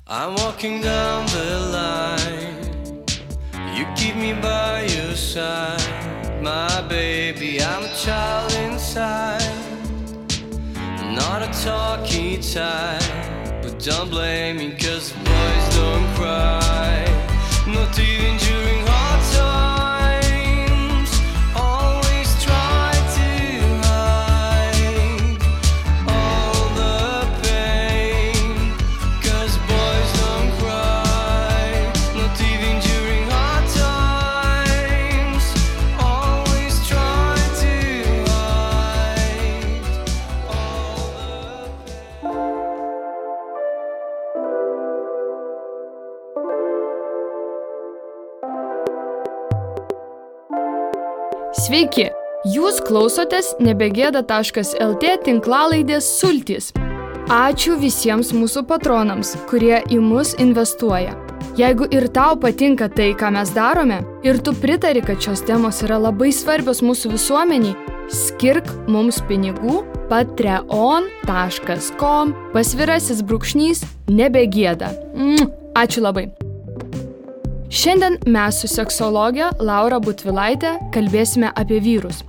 I'm walking down the line. You keep me by your side. My baby, I'm a child inside. Not a talky type, but don't blame me, 'cause boys don't cry. Not even during hard times. Always try to hide all the pain, 'cause boys don't cry. Not even during hard times. Always try to hide all the Sveiki! Jūs klausotės nebegėda.lt tinklalaidės Sultys. Ačiū visiems mūsų patronams, kurie į mus investuoja. Jeigu ir tau patinka tai, ką mes darome, ir tu pritari, kad šios temos yra labai svarbios mūsų visuomeniai, skirk mums pinigų patreon.com/nebegėda. Ačiū labai. Šiandien mes su seksologė Laura Butvilaitė kalbėsime apie vyrus.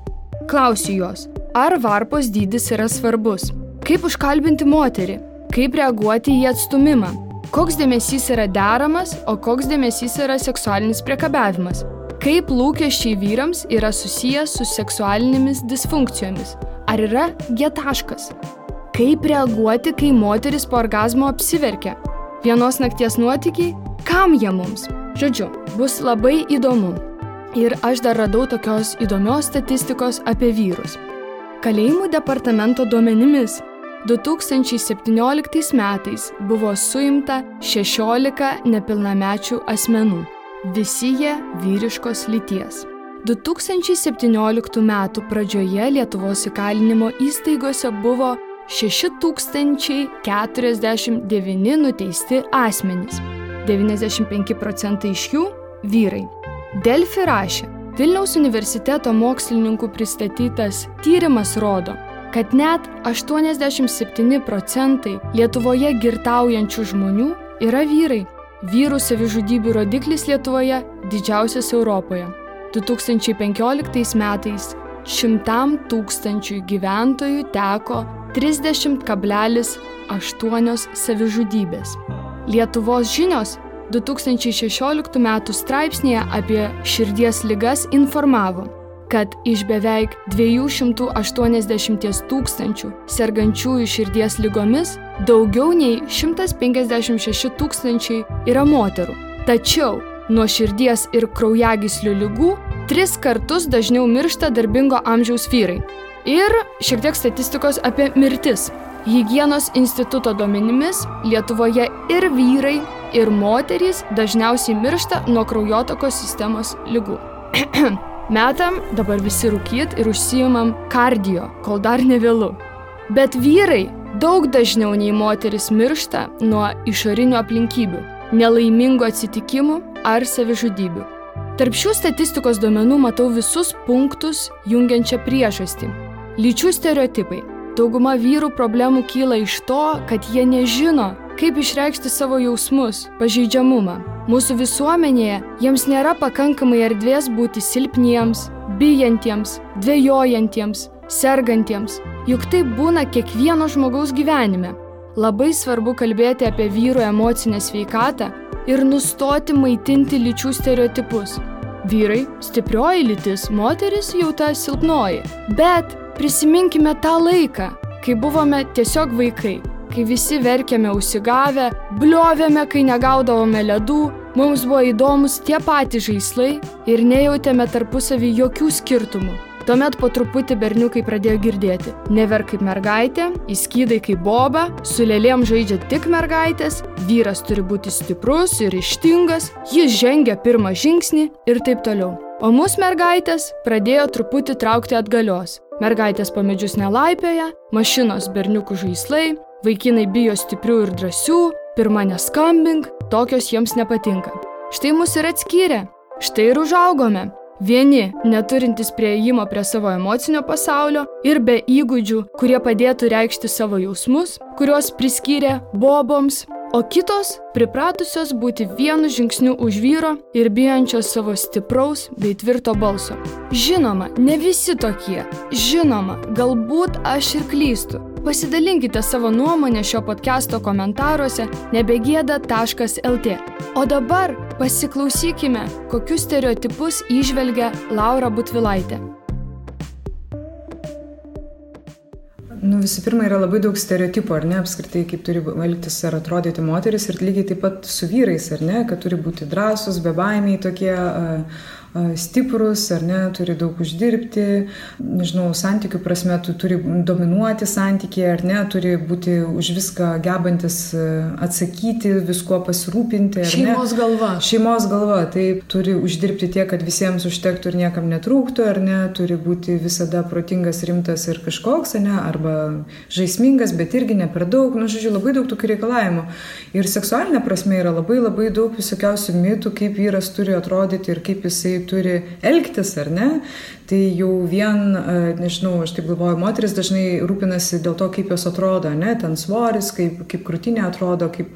Klausiu jos, ar varpos dydis yra svarbus? Kaip užkalbinti moterį? Kaip reaguoti į atstūmimą? Koks dėmesys yra deramas, o koks dėmesys yra seksualinis priekabiavimas? Kaip lūkesčiai vyrams yra susijęs su seksualinėmis disfunkcijomis? Ar yra G-taškas? Kaip reaguoti, kai moteris po orgazmo apsiverkia? Vienos nakties nuotykiai? Kam jie mums? Žodžiu, bus labai įdomu. Ir aš dar radau tokios įdomios statistikos apie vyrus. Kalėjimų departamento duomenimis 2017 metais buvo suimta 16 nepilnamečių asmenų. Visi jie vyriškos lyties. 2017 metų pradžioje Lietuvos įkalinimo įstaigose buvo 6049 nuteisti asmenys. 95% iš jų vyrai. Delfi rašė, Vilniaus universiteto mokslininkų pristatytas tyrimas rodo, kad net 87% Lietuvoje girtaujančių žmonių yra vyrai. Vyrų savižudybių rodiklis Lietuvoje didžiausias Europoje. 2015 metais 100 000 gyventojų teko 30,8 savižudybės. Lietuvos žinios 2016 metų straipsnėje apie širdies ligas informavo, kad iš beveik 280 000 sergančiųjų širdies ligomis daugiau nei 156 000 yra moterų. Tačiau nuo širdies ir kraujagyslių ligų 3 kartus dažniau miršta darbingo amžiaus vyrai. Ir šiek tiek statistikos apie mirtis. Higienos instituto duomenimis Lietuvoje ir vyrai, ir moterys dažniausiai miršta nuo kraujotakos sistemos ligų. Metam dabar visi rūkyt ir užsiimam kardio, kol dar nevėlu. Bet vyrai daug dažniau nei moteris miršta nuo išorinių aplinkybių, nelaimingų atsitikimų ar savižudybių. Tarp šių statistikos duomenų matau visus punktus jungiančią priežastį. Lyčių stereotipai. Dauguma vyrų problemų kyla iš to, kad jie nežino, kaip išreikšti savo jausmus, pažeidžiamumą. Mūsų visuomenėje jiems nėra pakankamai erdvės būti silpniems, bijantiems, dvejojantiems, sergantiems. Juk tai būna kiekvieno žmogaus gyvenime. Labai svarbu kalbėti apie vyrų emocinę sveikatą ir nustoti maitinti lyčių stereotipus. Vyrai – stiprioji lytis, moteris jau ta silpnoji. Bet prisiminkime tą laiką, kai buvome tiesiog vaikai, kai visi verkėme užsigavę, bliovėme, kai negaudavome ledų, mums buvo įdomus tie patys žaislai ir nejautėme tarpusavį jokių skirtumų. Tuomet po truputį berniukai pradėjo girdėti. Neverk kaip mergaitė, įskydai kaip boba, su lėlėm žaidžia tik mergaitės, vyras turi būti stiprus ir ryžtingas, jis žengia pirmą žingsnį ir taip toliau. O mus mergaitės pradėjo truputį traukti atgalios. Mergaitės po medžius nelaipioja, mašinos berniukų žaislai, vaikinai bijo stiprių ir drąsių, pirma neskambink, tokios jiems nepatinka. Štai mus ir atskyrė, štai ir užaugome. Vieni, neturintys prieėjimo prie savo emocinio pasaulio ir be įgūdžių, kurie padėtų reikšti savo jausmus, kuriuos priskyrė boboms, o kitos pripratusios būti vienu žingsniu už vyro ir bijančios savo stipraus bei tvirto balso. Žinoma, ne visi tokie. Žinoma, galbūt aš ir klystu. Pasidalinkite savo nuomonę šio podcast'o komentaruose nebegėda.lt. O dabar pasiklausykime, kokius stereotipus įžvelgia Laura Butvilaitė. Visų pirma, yra labai daug stereotipų, ar ne, apskritai, kaip turi elgtis ar atrodyti moteris ir lygiai taip pat su vyrais, ar ne, kad turi būti drąsūs, bebaimiai tokie, stiprus, ar ne, turi daug uždirbti, nežinau, santykių prasme, turi dominuoti santykiai, ar ne, turi būti už viską gebantis atsakyti, visko pasirūpinti, ar ne. Šeimos galva. Šeimos galva, taip, turi uždirbti tiek, kad visiems užtektų ir niekam netrūktų, ar ne, turi būti visada protingas, rimtas ir kažkoks, ar ne, arba žaismingas, bet irgi ne per daug, žodžiu, labai daug tokių reikalavimų. Ir seksualinė prasme yra labai daug visokiausių mitų, kaip vyras turi atrodyti ir kaip jisai turi elgtis, ar ne, tai jau vien, nežinau, aš taip galvoju, moteris dažnai rūpinasi dėl to, kaip jos atrodo, ne, ten svoris, kaip krūtinė atrodo, kaip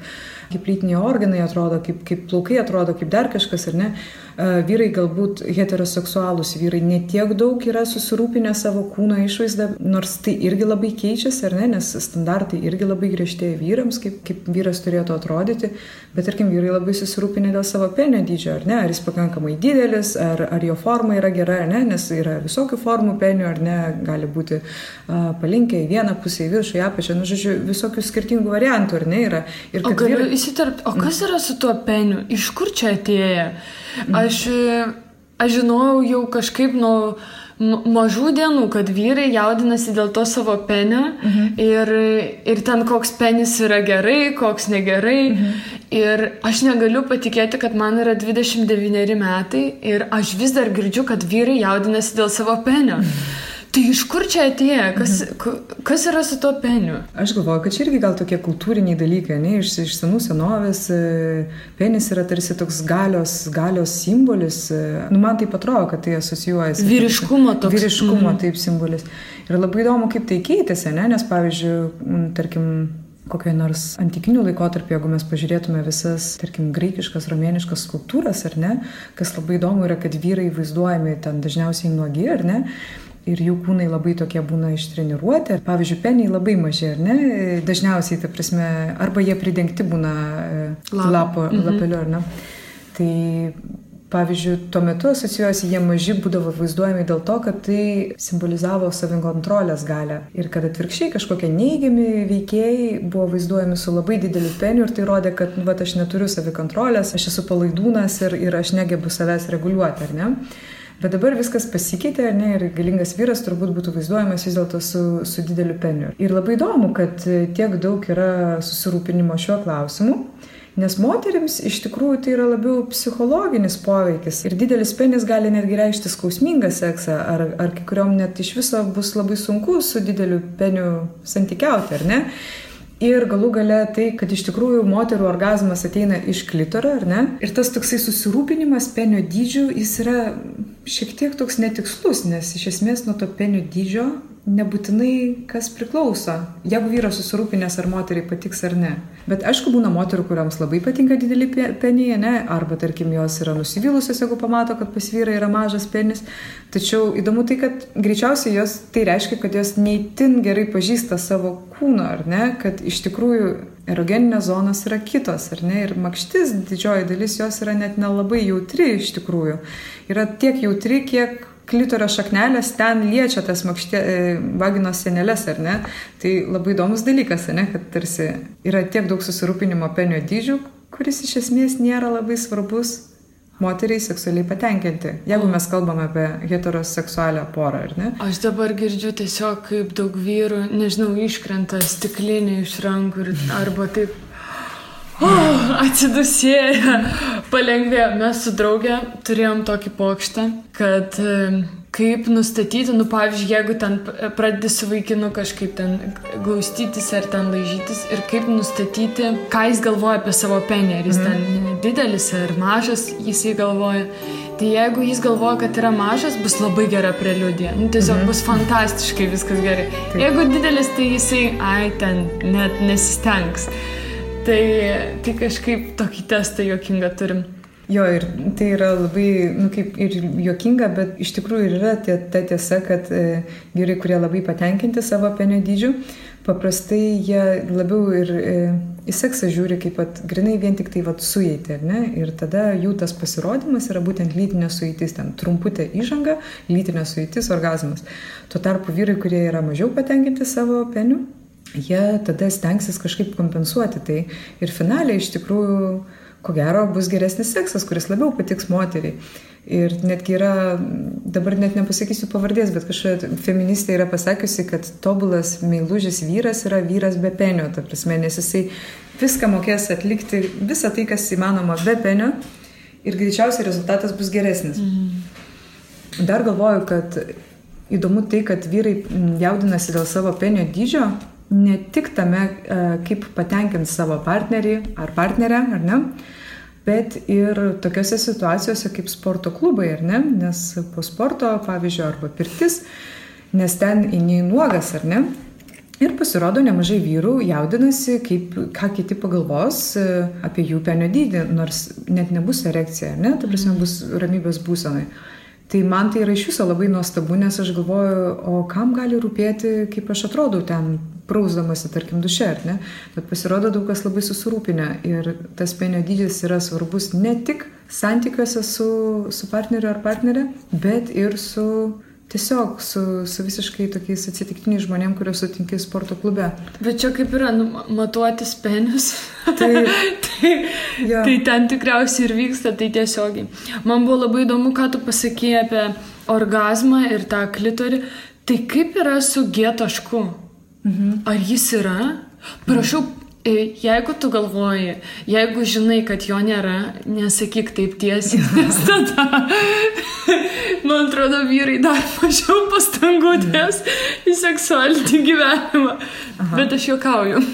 lytiniai organai atrodo, kaip plaukai atrodo, kaip dar kažkas, ar ne. Vyrai galbūt heteroseksualūs vyrai netiek daug yra susirūpinę savo kūno išvaizdą, nors tai irgi labai keičiasi, ar ne, nes standartai irgi labai griežtėja vyrams, kaip vyras turėtų atrodyti, bet tarkim vyrai labai susirūpinę dėl savo penio dydžio, ar ne, ar jis pakankamai didelis, ar jo forma yra gera, ar ne, nes yra visokių formų penio, ar ne, gali būti palinkę į vieną pusę, į viršų, į apačią, žodžiu, visokių skirtingų variantų, ar ne, yra. Ir o galiu įsiterpti, o kas yra su tuo peniu? Iš kur čia atėję? Aš žinojau jau kažkaip nuo mažų dienų, kad vyrai jaudinasi dėl to savo penio ir ten koks penis yra gerai, koks negerai. Ir aš negaliu patikėti, kad man yra 29 metai ir aš vis dar girdžiu, kad vyrai jaudinasi dėl savo penio. Tai iš kur čia atėjo? Kas yra su to peniu? Aš galvoju, kad čia irgi gal tokie kultūriniai dalykai, ne? Iš senų senovės penis yra tarsi toks galios simbolis. Man taip atrodo, kad tai asocijuojasi. Vyriškumo toks. Vyriškumo taip simbolis. Ir labai įdomu, kaip tai keitėsi, ne? Nes pavyzdžiui, tarkim, kokioje nors antikinių laikotarpį, jeigu mes pažiūrėtume visas, tarkim, graikiškas, romėniškas skulptūras, ar ne? Kas labai įdomu yra, kad vyrai vaizduojami ten dažniausiai nuogi, ar ne? Ir jų kūnai labai tokie būna ištreniruoti. Pavyzdžiui, peniai labai maži, ar ne? Dažniausiai, ta prasme, arba jie pridengti būna lapeliu, ar ne? Tai, pavyzdžiui, tuo metu asocijuojasi jie maži būdavo vaizduojami dėl to, kad tai simbolizavo savikontrolės galią. Ir kad atvirkščiai kažkokie neigiami veikėjai buvo vaizduojami su labai dideliu peniu ir tai rodė, kad aš neturiu savikontrolės, aš esu palaidūnas ir aš negebu savęs reguliuoti, ar ne? Bet dabar viskas pasikeitė, ar ne, ir galingas vyras turbūt būtų vaizduojamas vis dėlto su dideliu peniu. Ir labai įdomu, kad tiek daug yra susirūpinimo šiuo klausimu, nes moterims iš tikrųjų tai yra labiau psichologinis poveikis. Ir didelis penis gali netgi reikšti skausmingą seksą, ar kai kuriom net iš viso bus labai sunku su dideliu peniu santykiauti, ar ne? Ir galų gale tai, kad iš tikrųjų moterų orgazmas ateina iš klitoro, ar ne? Ir tas toksai susirūpinimas penio dydžių, jis yra šiek tiek toks netikslus, nes iš esmės nuo to penio dydžio nebūtinai kas priklauso. Jeigu vyras susirūpinęs, ar moteriai patiks ar ne. Bet aišku, būna moterų, kuriams labai patinka dideli peniai, ne? Arba, tarkim, jos yra nusivylusios, jeigu pamato, kad pas vyrą yra mažas penis. Tačiau įdomu tai, kad greičiausiai jos tai reiškia, kad jos neįtin gerai pažįsta savo kūno, ar ne? Kad iš tikrųjų erogeninės zonos yra kitos, ar ne? Ir makštis, didžioji dalis jos yra net nelabai jautri iš tikrųjų. Yra tiek jautri, kiek klitorio šaknelės ten liečia tas vaginos sienelės, ar ne? Tai labai įdomus dalykas, ne? Kad tarsi yra tiek daug susirūpinimo penio dydžių, kuris iš esmės nėra labai svarbus moteriai seksualiai patenkinti, jeigu mes kalbame apie heteroseksualią porą, ar ne? Aš dabar girdžiu tiesiog, kaip daug vyrų, nežinau, iškrenta stiklinė iš rankų arba taip atsidusėję, palengvėjo. Mes su draugė turėjom tokį pokštą, kad kaip nustatyti, pavyzdžiui, jeigu ten pradedi su vaikinu kažkaip ten glaustytis ar ten laižytis ir kaip nustatyti, ką jis galvoja apie savo penį, ar jis ten didelis ar mažas, jisai galvoja. Tai jeigu jis galvoja, kad yra mažas, bus labai gera preliudija. Tiesiog bus fantastiškai viskas gerai. Jeigu didelis, tai jisai, ten net nesistengs. Tai kažkaip tokį testą juokingą turim. Jo, ir tai yra labai, kaip ir juokinga, bet iš tikrųjų ir yra ta tiesa, kad vyrai, kurie labai patenkinti savo penio dydžiu, paprastai jie labiau ir į seksą žiūri kaip grinai vien tik tai sueitį, ar ne? Ir tada jų tas pasirodymas yra būtent lytinė sueitis, ten trumputė įžanga, lytinė sueitis, orgazmas. Tuo tarpu vyrai, kurie yra mažiau patenkinti savo peniu, jie tada stengsis kažkaip kompensuoti tai. Ir finaliai iš tikrųjų, ko gero, bus geresnis seksas, kuris labiau patiks moteriai. Ir netgi yra, dabar net nepasakysiu pavardės, bet kažkokia feministė yra pasakiusi, kad tobulas meilužis vyras yra vyras be penio, ta prasme, nes jisai viską mokės atlikti, visą tai, kas įmanoma be penio, ir greičiausiai rezultatas bus geresnis. Dar galvoju, kad įdomu tai, kad vyrai jaudinasi dėl savo penio dydžio, ne tik tame, kaip patenkins savo partnerį ar partnerę, ar ne, bet ir tokiose situacijose kaip sporto klubai, ar ne, nes po sporto, pavyzdžiui, arba pirtis, nes ten eini nuogas, ar ne, ir pasirodo nemažai vyrų jaudinasi, ką kiti pagalvos apie jų penio dydį, nors net nebus erekcija, ar ne, ta prasme bus ramybės būsenai. Tai man tai yra iš viso labai nuostabu, nes aš galvoju, o kam gali rūpėti, kaip aš atrodau ten prausdamasi, tarkim, duše, ar ne? Bet pasirodo daug kas labai susirūpinę ir tas penio dydis yra svarbus ne tik santykiuose su partneriu ar partnerė, bet ir tiesiog su visiškai tokiais atsitiktiniais žmonėm, kuriuos sutinki sporto klube. Bet čia kaip yra, matuotis penius. Ja. Tai ten tikriausiai ir vyksta, tai tiesiogiai. Man buvo labai įdomu, ką tu pasakėjai apie orgazmą ir tą klitorį. Tai kaip yra su G tašku? Ar jis yra? Prašau, jeigu tu galvoji, jeigu žinai, kad jo nėra, nesakyk taip tiesiai, nes tada, man atrodo, vyrai dar mažiau pastangų dės į seksualinį gyvenimą. Bet aš juokauju.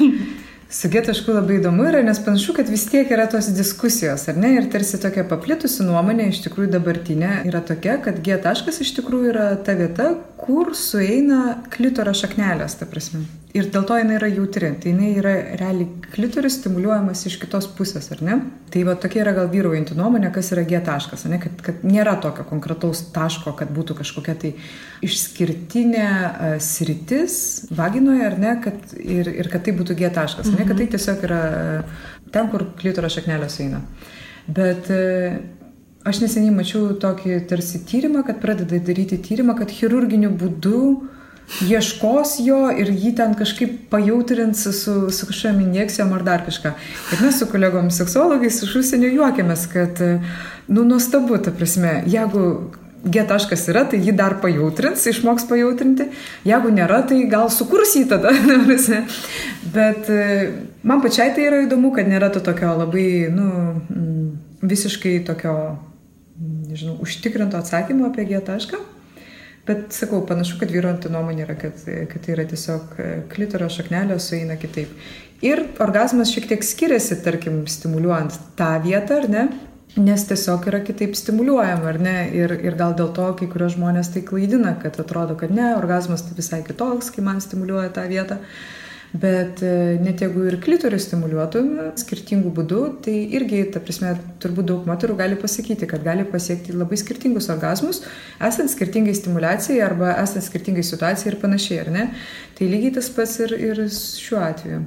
Su G tašku labai įdomu yra, nes panašu, kad vis tiek yra tos diskusijos, ar ne? Ir tarsi tokia paplitusi nuomonė, iš tikrųjų dabartinė, yra tokia, kad G taškas iš tikrųjų yra ta vieta, kur sueina klitoro šaknelės, ta prasme. Ir dėl to jinai yra jautri. Tai jinai yra realiai klitoris stimuliuojamas iš kitos pusės, ar ne? Tai tokia yra gal vyraujanti nuomonė, kas yra G taškas, ne? Kad nėra tokio konkretaus taško, kad būtų kažkokia tai išskirtinė sritis vaginoje, ar ne? Ir kad tai būtų G taškas, ne? Kad tai tiesiog yra ten, kur klitoro šaknelės sueina. Bet aš neseniai mačiau tokį tarsi tyrimą, kad pradeda daryti tyrimą, kad chirurginiu būdu ieškos jo ir jį ten kažkaip pajautrins su kažkokiam injekcijom ar dar kažką. Ir mes su kolegomis seksologais iš užsienio juokiamės, kad, nuostabu, ta prasme, jeigu G taškas yra, tai jį dar pajautrins, išmoks pajautrinti. Jeigu nėra, tai gal sukurs jį tada. Bet man pačiai tai yra įdomu, kad nėra to tokio labai, visiškai tokio, nežinau, užtikrinto atsakymo apie G tašką. Bet, sakau, panašu, kad vyraujanti nuomonė yra, kad tai yra tiesiog klitoro šaknelė sueina kitaip. Ir orgazmas šiek tiek skiriasi, tarkim, stimuliuojant tą vietą, ar ne? Nes tiesiog yra kitaip stimuliuojama, ar ne? Ir gal dėl to kai kurios žmonės tai klaidina, kad atrodo, kad ne, orgazmas tai visai kitoks, kai man stimuliuoja tą vietą. Bet net jeigu ir klitorių stimuliuotume skirtingų būdų, tai irgi, ta prasme, turbūt daug moterų gali pasakyti, kad gali pasiekti labai skirtingus orgazmus, esant skirtingai stimulacijai arba esant skirtingai situacijai ir panašiai, ar ne? Tai lygiai tas pats ir šiuo atveju.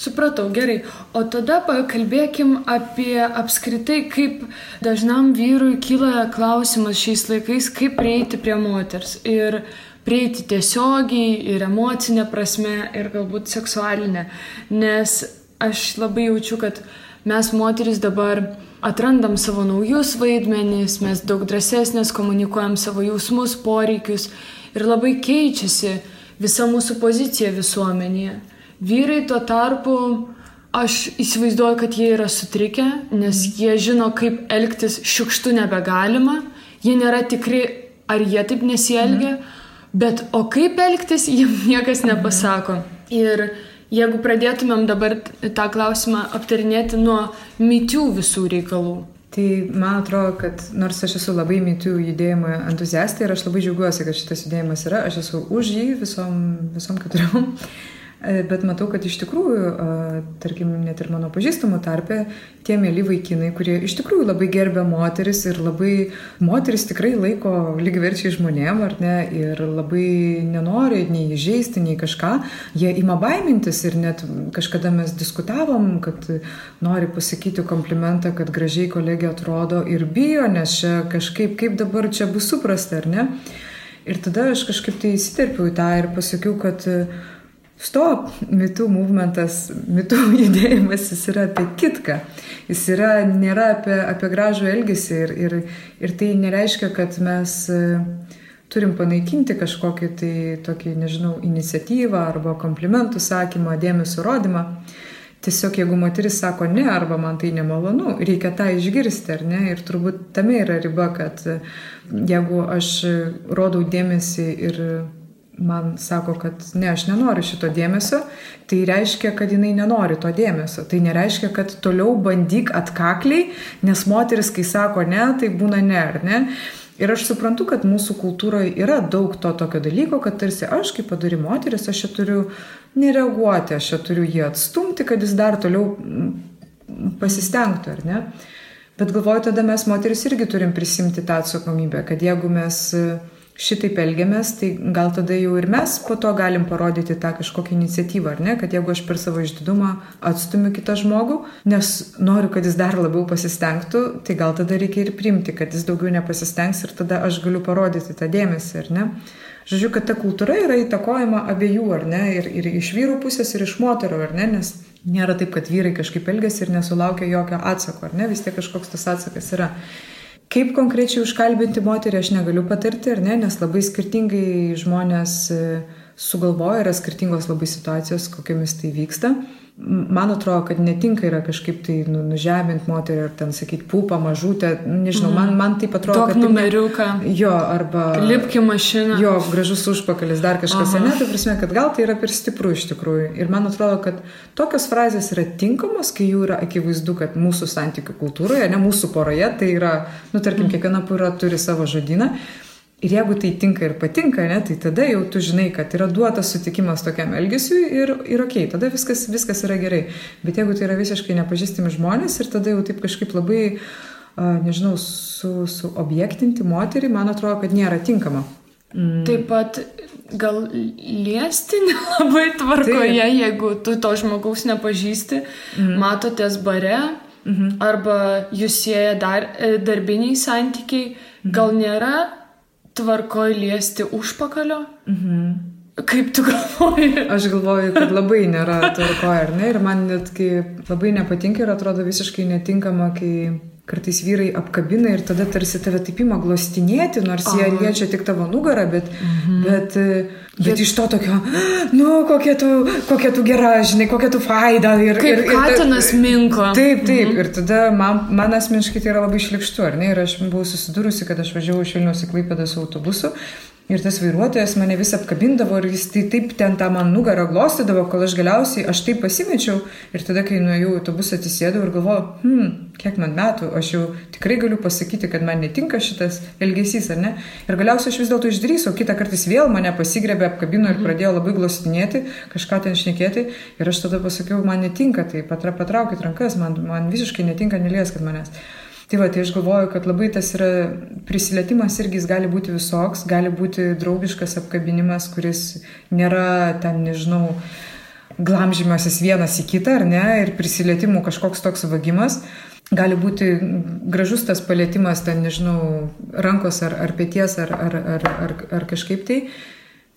Supratau, gerai. O tada pakalbėkim apie apskritai, kaip dažnam vyrui kyla klausimas šiais laikais, kaip prieiti prie moters. Ir prieiti tiesiogiai ir emocinė prasme ir galbūt seksualinė. Nes aš labai jaučiu, kad mes moteris dabar atrandam savo naujus vaidmenis, mes daug drąsesnės komunikuojam savo jausmus, poreikius ir labai keičiasi visa mūsų pozicija visuomenėje. Vyrai tuo tarpu, aš įsivaizduoju, kad jie yra sutrikę, nes jie žino, kaip elgtis šiukštu nebegalima, jie nėra tikri, ar jie taip nesielgia, bet o kaip elgtis, jiems niekas nepasako. Ir jeigu pradėtumėm dabar tą klausimą aptarinėti nuo MeToo visų reikalų. Tai man atrodo, kad nors aš esu labai MeToo judėjimo entuziastė ir aš labai džiaugiuosi, kad šitas judėjimas yra, aš esu už jį visom keturiom. Bet matau, kad iš tikrųjų, tarkim, net ir mano pažįstamų tarpe, tie mėly vaikinai, kurie iš tikrųjų labai gerbia moteris ir labai moteris tikrai laiko lygiaverčiai žmonėm, ar ne, ir labai nenori nei įžeisti, nei kažką, jie ima baimintis ir net kažkada mes diskutavom, kad nori pasakyti komplimentą, kad gražiai kolegė atrodo ir bijo, nes čia kažkaip, kaip dabar čia bus suprasta, ar ne? Ir tada aš kažkaip tai įsiterpiau į tą ir pasakiau, kad stop, mitų movementas, mitų judėjimas, jis yra apie kitką. Jis nėra apie gražų elgesį ir tai nereiškia, kad mes turim panaikinti kažkokį tai tokį, nežinau, iniciatyvą arba komplimentų sakymą, dėmesio rodymą. Tiesiog jeigu moteris sako ne arba man tai nemalonu, reikia tą išgirsti, ar ne? Ir turbūt tame yra riba, kad jeigu aš rodau dėmesį ir man sako, kad ne, aš nenoriu šito dėmesio, tai reiškia, kad jinai nenori to dėmesio. Tai nereiškia, kad toliau bandyk atkakliai, nes moteris, kai sako ne, tai būna ne, ar ne? Ir aš suprantu, kad mūsų kultūroje yra daug to tokio dalyko, kad tarsi aš, kaip padori moteris, aš čia turiu nereaguoti, aš čia turiu jį atstumti, kad jis dar toliau pasistengtų, ar ne? Bet galvoju, tada mes moteris irgi turim prisimti tą atsakomybę, kad jeigu mes šitaip elgiamės, tai gal tada jau ir mes po to galim parodyti tą kažkokią iniciatyvą, ar ne? Kad jeigu aš per savo išdidumą atstumiu kitą žmogų, nes noriu, kad jis dar labiau pasistengtų, tai gal tada reikia ir priimti, kad jis daugiau nepasistengs ir tada aš galiu parodyti tą dėmesį, ar ne? Žodžiu, kad ta kultūra yra įtakojama abiejų, ar ne? Ir iš vyrų pusės, ir iš moterų, ar ne? Nes nėra taip, kad vyrai kažkaip elgiasi ir nesulaukia jokio atsako, ar ne? Vis tiek kažkoks tas atsakas yra. Kaip konkrečiai užkalbinti moterį aš negaliu patarti, ar ne, nes labai skirtingai žmonės sugalvoja, yra skirtingos labai situacijos, kokiamis tai vyksta. Man atrodo, kad netinka yra kažkaip tai nužeminti moterį ar ten sakyti pūpą, mažutę, nežinau, man taip atrodo, kad... Tok numeriuką. Jo, arba... Lipki mašiną. Jo, gražus užpakalis, dar kažkas, ne, tai prasme, kad gal tai yra per stipru iš tikrųjų. Ir man atrodo, kad tokios frazės yra tinkamos, kai jų yra akivaizdu, kad mūsų santykių kultūroje, ne mūsų poroje, tai yra, tarkim, kiekviena pora turi savo žodyną. Ir jeigu tai tinka ir patinka, ne, tai tada jau tu žinai, kad yra duotas sutikimas tokiam elgesiui ir okei, tada viskas yra gerai. Bet jeigu tai yra visiškai nepažįstami žmonės ir tada jau taip kažkaip labai, nežinau, suobjektinti moterį, man atrodo, kad nėra tinkama. Taip pat gal liesti nelabai tvarkoje, jeigu tu to žmogaus nepažįsti, matotės bare, arba jūs sieja darbiniai santykiai, gal nėra tvarkoj liesti užpakalio? Kaip tu galvoji? Aš galvoju, kad labai nėra tvarkoj, ar ne? Ir man net labai nepatinka ir atrodo visiškai netinkama, kai kartais vyrai apkabina ir tada tarsi tave taip ima glostinėti, nors jie liečia tik tavo nugarą, bet iš to tokio, kokia tu gera, žinai, kokia tu faida. Kaip katinas minko. Taip, ir tada man asmeniškai tai yra labai šlykštu, ar ne? Ir aš buvau susidūrusi, kad aš važiavau iš Vilniaus į Klaipėdą su autobusu. Ir tas vairuotojas mane vis apkabindavo ir jis taip ten tą man nugarą glostydavo, kol aš galiausiai taip pasimečiau. Ir tada, kai nuėjau į autobusą, atsisėdau ir galvojau, kiek man metų, aš jau tikrai galiu pasakyti, kad man netinka šitas elgesys, ar ne? Ir galiausiai aš vis dėlto išdrįsau, kitą kartą vėl mane pasigrebė, apkabino ir pradėjo labai glostinėti, kažką ten šnekėti. Ir aš tada pasakiau, man netinka, tai patraukit rankas, man visiškai netinka, nelieskit manęs. Tai aš galvoju, kad labai tas yra prisilietimas irgi jis gali būti visoks, gali būti draugiškas apkabinimas, kuris nėra ten, nežinau, glamžymasis vienas į kitą, ar ne, ir prisilietimų kažkoks toks vagimas. Gali būti gražus tas palietimas, ten, nežinau, rankos ar pėties ar kažkaip tai.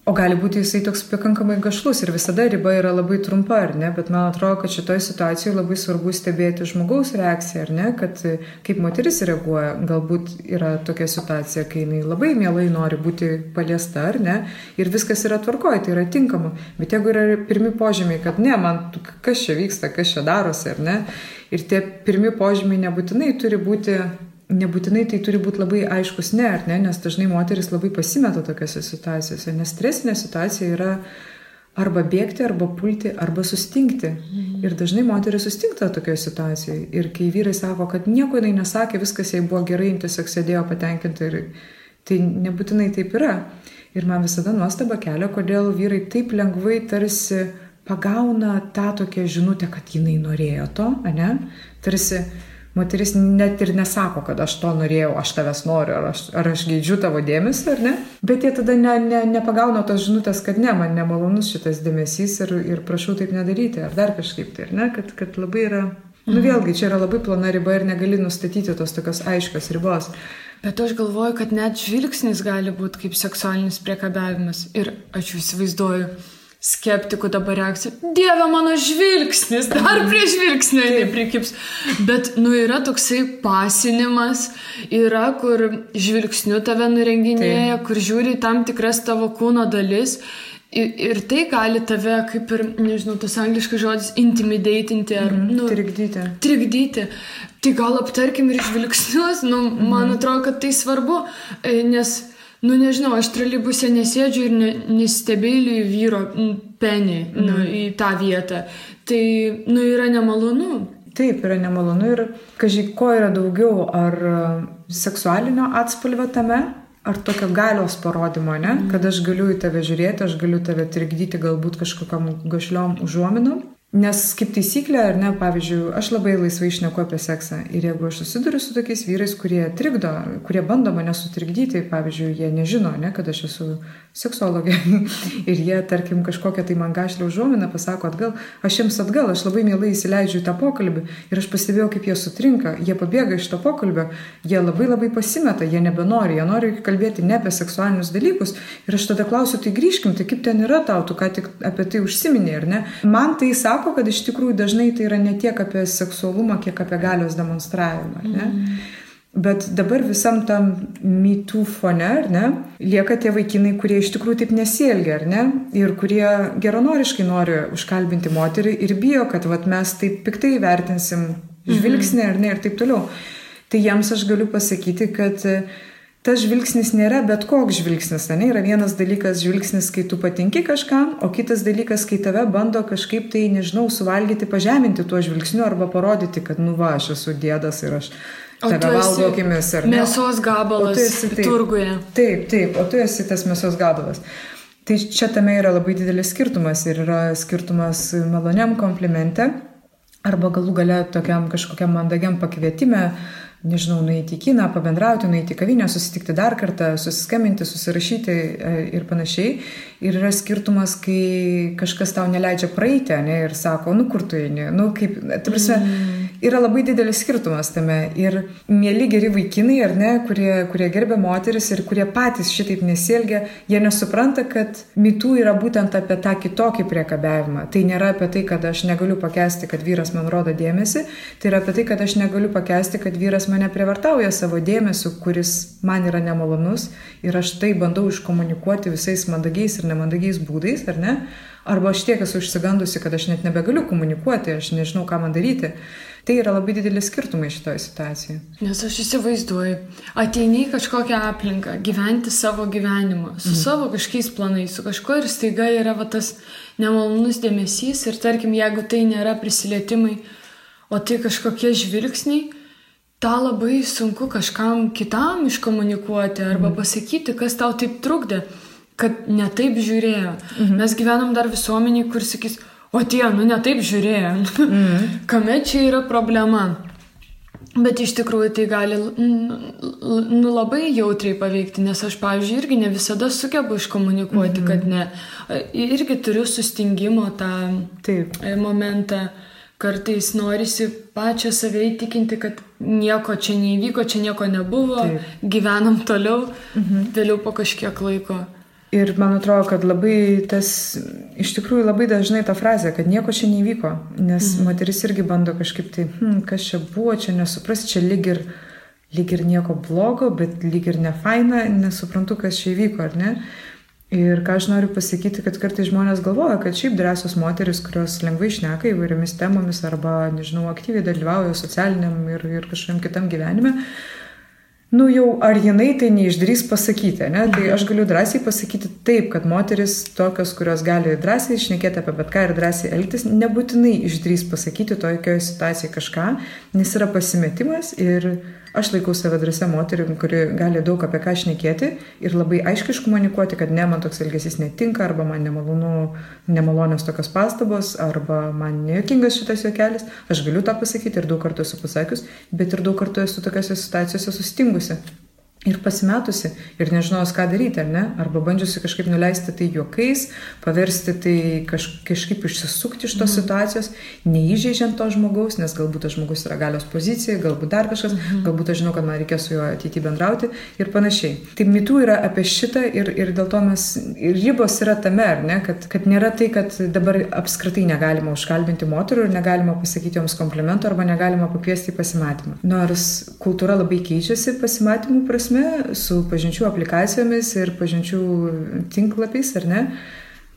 O gali būti jisai toks pakankamai gašlus ir visada riba yra labai trumpa, ar ne? Bet man atrodo, kad šitoje situacijoje labai svarbu stebėti žmogaus reakciją, ar ne? Kad kaip moteris reaguoja, galbūt yra tokia situacija, kai jinai labai mielai nori būti paliesta, ar ne? Ir viskas yra tvarkoje, tai yra tinkama. Bet jeigu yra pirmi požymiai, kad ne, man kas čia vyksta, kas čia darosi, ar ne? Ir tie pirmi požymiai nebūtinai tai turi būti labai aiškus ne, ar ne, nes dažnai moteris labai pasimeta tokiose situacijose, nes stresinė situacija yra arba bėgti, arba pulti, arba sustingti. Ir dažnai moteris sustingta tokioje situacijoje. Ir kai vyrai sako, kad nieko jinai nesakė, viskas jai buvo gerai, tiesiog sėdėjo patenkinta, ir tai nebūtinai taip yra. Ir man visada nuostaba kelia, kodėl vyrai taip lengvai tarsi pagauna tą tokią žinutę, kad jinai norėjo to, ane? Tarsi moteris net ir nesako, kad aš to norėjau, aš tavęs noriu, ar aš geidžiu tavo dėmesį, ar ne? Bet jie tada nepagauna tos žinutės, kad ne, man nemalonus šitas dėmesys ir prašau taip nedaryti, ar dar kažkaip tai, ar ne? Kad labai yra, vėlgi, čia yra labai plona riba ir negali nustatyti tos tokios aiškios ribos. Bet aš galvoju, kad net žvilgsnis gali būti kaip seksualinis priekabiavimas. Ir aš įsivaizduoju skeptikų dabar reakciją. Dieve, mano žvilgsnis, dar prie žvilgsnio neprikips. Bet, yra toksai pasinimas, yra, kur žvilgsniu tave nurenginėja, kur žiūri tam tikras tavo kūno dalis. Ir tai gali tave, kaip ir, nežinau, tas angliškas žodis, intimidatinti ar, trikdyti. Tai gal aptarkim ir žvilgsnius, man atrodo, kad tai svarbu, nes, nežinau, aš troleibuse nesėdžiu ir nestebėliu vyro penį į tą vietą. Tai, yra nemalonu. Taip, yra nemalonu ir, kažkaip, ko yra daugiau, ar seksualinio atspalvio tame, ar tokio galios parodymo, ne? Kad aš galiu į tave žiūrėti, aš galiu tave trikdyti galbūt kažkokiam gašliom užuominom. Nes kaip taisyklė, ar ne, pavyzdžiui, aš labai laisvai šneku apie seksą. Ir jeigu aš susiduriu su tokiais vyrais, kurie trikdo, kurie bando mane sutrikdyti, pavyzdžiui, jie nežino, ne, kad aš esu seksologė. Ir jie, tarkim, kažkokią tai man gašlę užuominą pasako atgal, aš jiems atgal, aš labai mielai įsileidžiu į tą pokalbį. Ir aš pastebėjau, kaip jie sutrinka, jie pabėga iš to pokalbio, jie labai pasimeta, jie nebenori, jie nori kalbėti ne apie seksualinius dalykus. Ir aš tada klausiu, tai grįžkim, tai kaip ten yra tau, tu ką tik apie tai užsiminė, ar ne? Man tai sako, kad iš tikrųjų dažnai tai yra ne tiek apie seksualumą, kiek apie galios demonstravimą, ne? Bet dabar visam tam Me Too fone, ar ne, lieka tie vaikinai, kurie iš tikrųjų taip nesielgia, ar ne, ir kurie geranoriškai nori užkalbinti moterį ir bijo, kad mes taip piktai vertinsim žvilgsnį, ar ne, ir taip toliau. Tai jiems aš galiu pasakyti, kad tas žvilgsnis nėra bet koks žvilgsnis, ne? Yra vienas dalykas žvilgsnis, kai tu patinki kažkam, o kitas dalykas, kai tave bando kažkaip tai, nežinau, suvalgyti, pažeminti tuo žvilgsniu arba parodyti, kad, aš esu dėdas ir aš tave valgo akimis, ar ne? Mėsos gabalas turguje. Taip, o tu esi tas mėsos gabalas. Tai čia tame yra labai didelis skirtumas ir yra skirtumas maloniam komplimente arba galų gale tokiam kažkokiam mandagiam pakvietime, nežinau, nueiti į kiną, pabendrauti, nueiti į kavinę, susitikti dar kartą, susiskambinti, susirašyti ir panašiai. Ir yra skirtumas, kai kažkas tau neleidžia praeiti, ne, ir sako, kur tu eini, kaip, ta prasme, yra labai didelis skirtumas tame. Ir mieli geri vaikinai, ar ne, kurie gerbia moteris ir kurie patys šitaip nesielgia, jie nesupranta, kad Me Too yra būtent apie tą kitokį priekabiavimą. Tai nėra apie tai, kad aš negaliu pakęsti, kad vyras man rodo dėmesį, tai yra apie tai, kad aš negaliu pakęsti, kad vyras mane prievartauja savo dėmesiu, kuris man yra nemalonus ir aš tai bandau iškomunikuoti visais mandagiais ir nemandagiais būdais, ar ne? Arba aš tiek esu išsigandusi, kad aš net nebegaliu komunikuoti, aš nežinau, ką man daryti. Tai yra labai didelis skirtumai šitoje situacijoje. Nes aš įsivaizduoju, ateini į kažkokią aplinką, gyventi savo gyvenimą, su savo kažkokiais planais, su kažko ir staiga yra tas nemalonus dėmesys ir tarkim, jeigu tai nėra prisilietimai, o tai kažkokie žvilgsniai, tą labai sunku kažkam kitam iškomunikuoti arba pasakyti, kas tau taip trukdė, kad ne taip žiūrėjo. Mes gyvenam dar visuomenį, kur sakys, o tie, ne taip žiūrėjo. Kame čia yra problema? Bet iš tikrųjų tai gali labai jautriai paveikti, nes aš, pavyzdžiui, irgi ne visada sugebu iškomunikuoti, kad ne. Irgi turiu sustingimo tą momentą. Kartais norisi pačią save įtikinti, kad nieko čia neįvyko, čia nieko nebuvo, gyvenam toliau, vėliau po kažkiek laiko. Ir man atrodo, kad labai iš tikrųjų labai dažnai ta frazė, kad nieko čia neįvyko, nes moteris irgi bando kažkaip tai, kas čia buvo, čia nesuprasti, čia lyg ir nieko blogo, bet lyg ir nefaina, nesuprantu, kas čia įvyko, ar ne? Ir ką aš noriu pasakyti, kad kartais žmonės galvoja, kad šiaip drąsios moteris, kurios lengvai šneka įvairiomis temomis arba, nežinau, aktyviai dalyvauja socialiniam ir kažkokiam kitam gyvenime, jau ar jinai tai neišdrįs pasakyti, ne? Tai aš galiu drąsiai pasakyti taip, kad moteris tokios, kurios gali drąsiai šnekėti apie bet ką ir drąsiai elgtis, nebūtinai išdrįs pasakyti tokioje situacijoje kažką, nes yra pasimetimas ir aš laikau save drąsia moterim, kuri gali daug apie ką šnekėti ir labai aiškiai iškomunikuoti, kad ne, man toks elgesys netinka, arba man nemalonios tokios pastabos, arba man nejuokingas šitas juokelis. Aš galiu tą pasakyti ir daug kartų esu pasakius, bet ir daug kartų esu tokiose situacijose sustingusi. Ir pasimetusi, ir nežinojus, ką daryti, ar ne? Arba bandžiusi kažkaip nuleisti tai juokais, paversti tai kažkaip išsisukti iš tos situacijos, neįžeidžiant to žmogaus, nes galbūt tas žmogus yra galios pozicija, galbūt dar kažkas, galbūt aš žinau, kad man reikės su juo ateityje bendrauti ir panašiai. Tai mitų yra apie šitą ir dėl to ir ribos yra tame, ar ne? Kad nėra tai, kad dabar apskritai negalima užkalbinti moterų ir negalima pasakyti joms komplimentų arba negalima pakviesti į pasimatymą. Nors kultūra labai keičiasi pasimatymų prasme, su pažinčių aplikacijomis ir pažinčių tinklapiais, ar ne,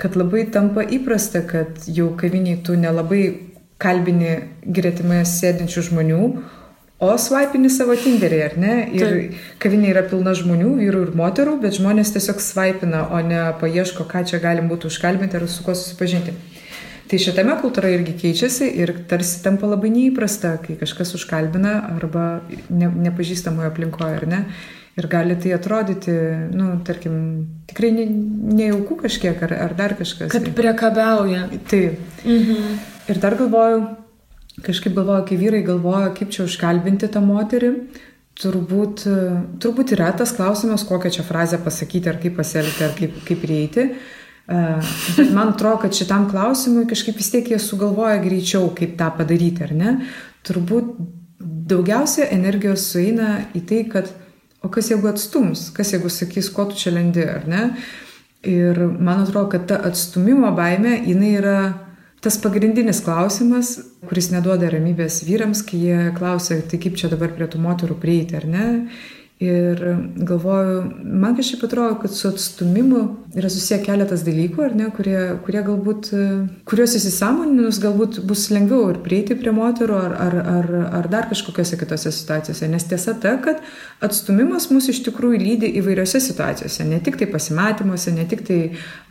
kad labai tampa įprasta, kad jau kaviniai tu nelabai kalbini gretimai sėdinčių žmonių, o svaipini savo Tinderį, ar ne? Ir kavinė yra pilna žmonių, vyrų ir moterų, bet žmonės tiesiog svaipina, o ne paieško, ką čia galim būtų užkalbinti ar su kuo susipažinti. Tai šitame kultūra irgi keičiasi ir tarsi tampa labai neįprasta, kai kažkas užkalbina arba nepažįstamoje aplinkoje, ar ne? Ir gali tai atrodyti, tarkim, tikrai nejaukų kažkiek ar dar kažkas. Kad priekabiauja. Taip. Ir dar kažkaip galvoju, kai vyrai galvoja, kaip čia užkalbinti tą moterį, turbūt yra tas klausimas, kokią čia frazę pasakyti, ar kaip pasielgti, ar kaip prieiti. Bet man atrodo, kad šitam klausimui kažkaip vis tiek jie sugalvoja greičiau, kaip tą padaryti, ar ne? Turbūt daugiausia energijos sueina į tai, kad o kas jeigu atstums, kas jeigu sakys, ko tu čia lendi, ar ne? Ir man atrodo, kad ta atstumimo baimė, jinai yra tas pagrindinis klausimas, kuris neduoda ramybės vyrams, kai jie klausia, tai kaip čia dabar prie tų moterų prieiti, ar ne? Ir galvoju, man kažkaip atrodo, kad su atstumimu yra susiję keletas dalykų, ar ne, kurie galbūt, kuriuos įsisąmoninus galbūt bus lengviau ir prieiti prie moterų ar dar kažkokiose kitose situacijose. Nes tiesa ta, kad atstumimas mus iš tikrųjų lydi įvairiose situacijose, ne tik tai pasimatymuose, ne tik tai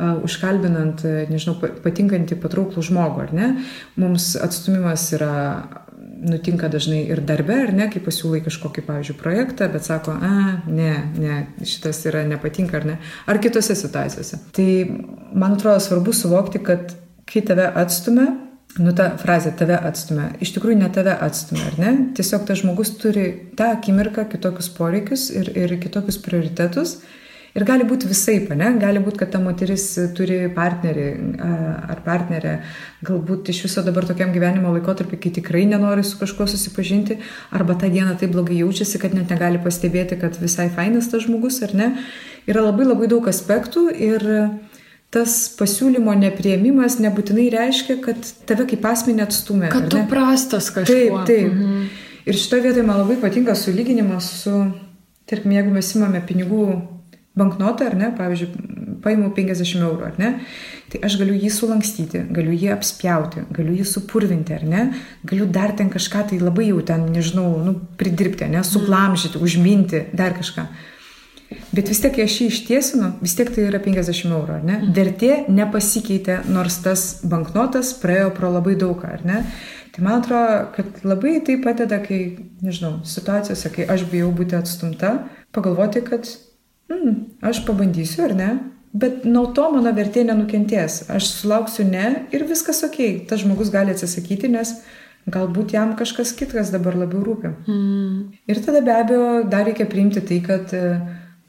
užkalbinant, nežinau, patinkantį patrauklų žmogų, ar ne. Mums atstumimas nutinka dažnai ir darbe, ar ne, kai pasiūlai kažkokį, pavyzdžiui, projektą, bet sako, ne, šitas nepatinka, ar ne, ar kitose situacijose. Tai, man atrodo, svarbu suvokti, kad kai tave atstumia, ta frazė tave atstumia, iš tikrųjų ne tave atstumia, ar ne, tiesiog tas žmogus turi tą akimirką kitokius poreikius ir kitokius prioritetus. Ir gali būti visaip, ne? Gali būti, kad ta moteris turi partnerį ar partnerę, galbūt iš viso dabar tokiam gyvenimo laikotarpiu, kai tikrai nenori su kažkuo susipažinti, arba tą dieną taip blogai jaučiasi, kad net negali pastebėti, kad visai fainas tas žmogus, ar ne? Yra labai labai daug aspektų ir tas pasiūlymo nepriėmimas nebūtinai reiškia, kad tave kaip asmenį atstumė. Kad tu prastas kažkuo. Taip. Ir šitoje vietoje man labai patinka sulyginimas su, tarkim, jeigu mes imame pinigų banknotą, ar ne, pavyzdžiui, paimu 50 eurų, ar ne, tai aš galiu jį sulankstyti, galiu jį apspjauti, galiu jį supurvinti, ar ne, galiu dar ten kažką tai labai jau ten, nežinau, pridirbti, ne, suglamžyti, užminti, dar kažką. Bet vis tiek, kai aš jį ištiesinu, vis tiek tai yra 50 eurų, ar ne, vertė nepasikeitė, nors tas banknotas praėjo pro labai daugą, ar ne. Tai man atrodo, kad labai tai padeda, kai, nežinau, situacijose, kai aš bijau būti atstumta, pagalvoti, kad aš pabandysiu, ar ne, bet nuo to mano vertė nenukentės. Aš sulauksiu ne ir viskas okei. Tas žmogus gali atsisakyti, nes galbūt jam kažkas kitas dabar labiau rūpi. Ir tada be abejo dar reikia priimti tai, kad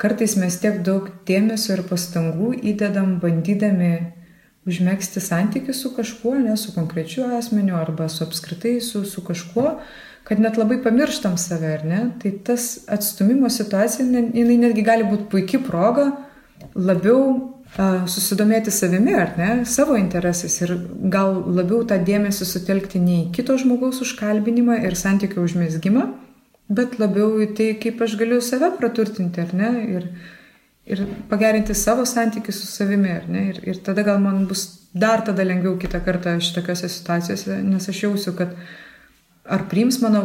kartais mes tiek daug dėmesio ir pastangų įdedam bandydami užmegzti santykių su kažkuo, ne su konkrečiu asmeniu arba su apskritai su kažkuo, kad net labai pamirštam save, ar ne? Tai tas atstumimo situacija, jinai netgi gali būti puikia proga labiau susidomėti savimi, ar ne? Savo interesais ir gal labiau tą dėmesį sutelkti ne į kito žmogaus užkalbinimą ir santykių užmezgimą, bet labiau į tai, kaip aš galiu save praturtinti, ar ne? Ir pagerinti savo santykius su savimi, ar ne? Ir tada gal man bus dar tada lengviau kitą kartą šitokiose situacijose, nes aš jausiu, kad ar priims mano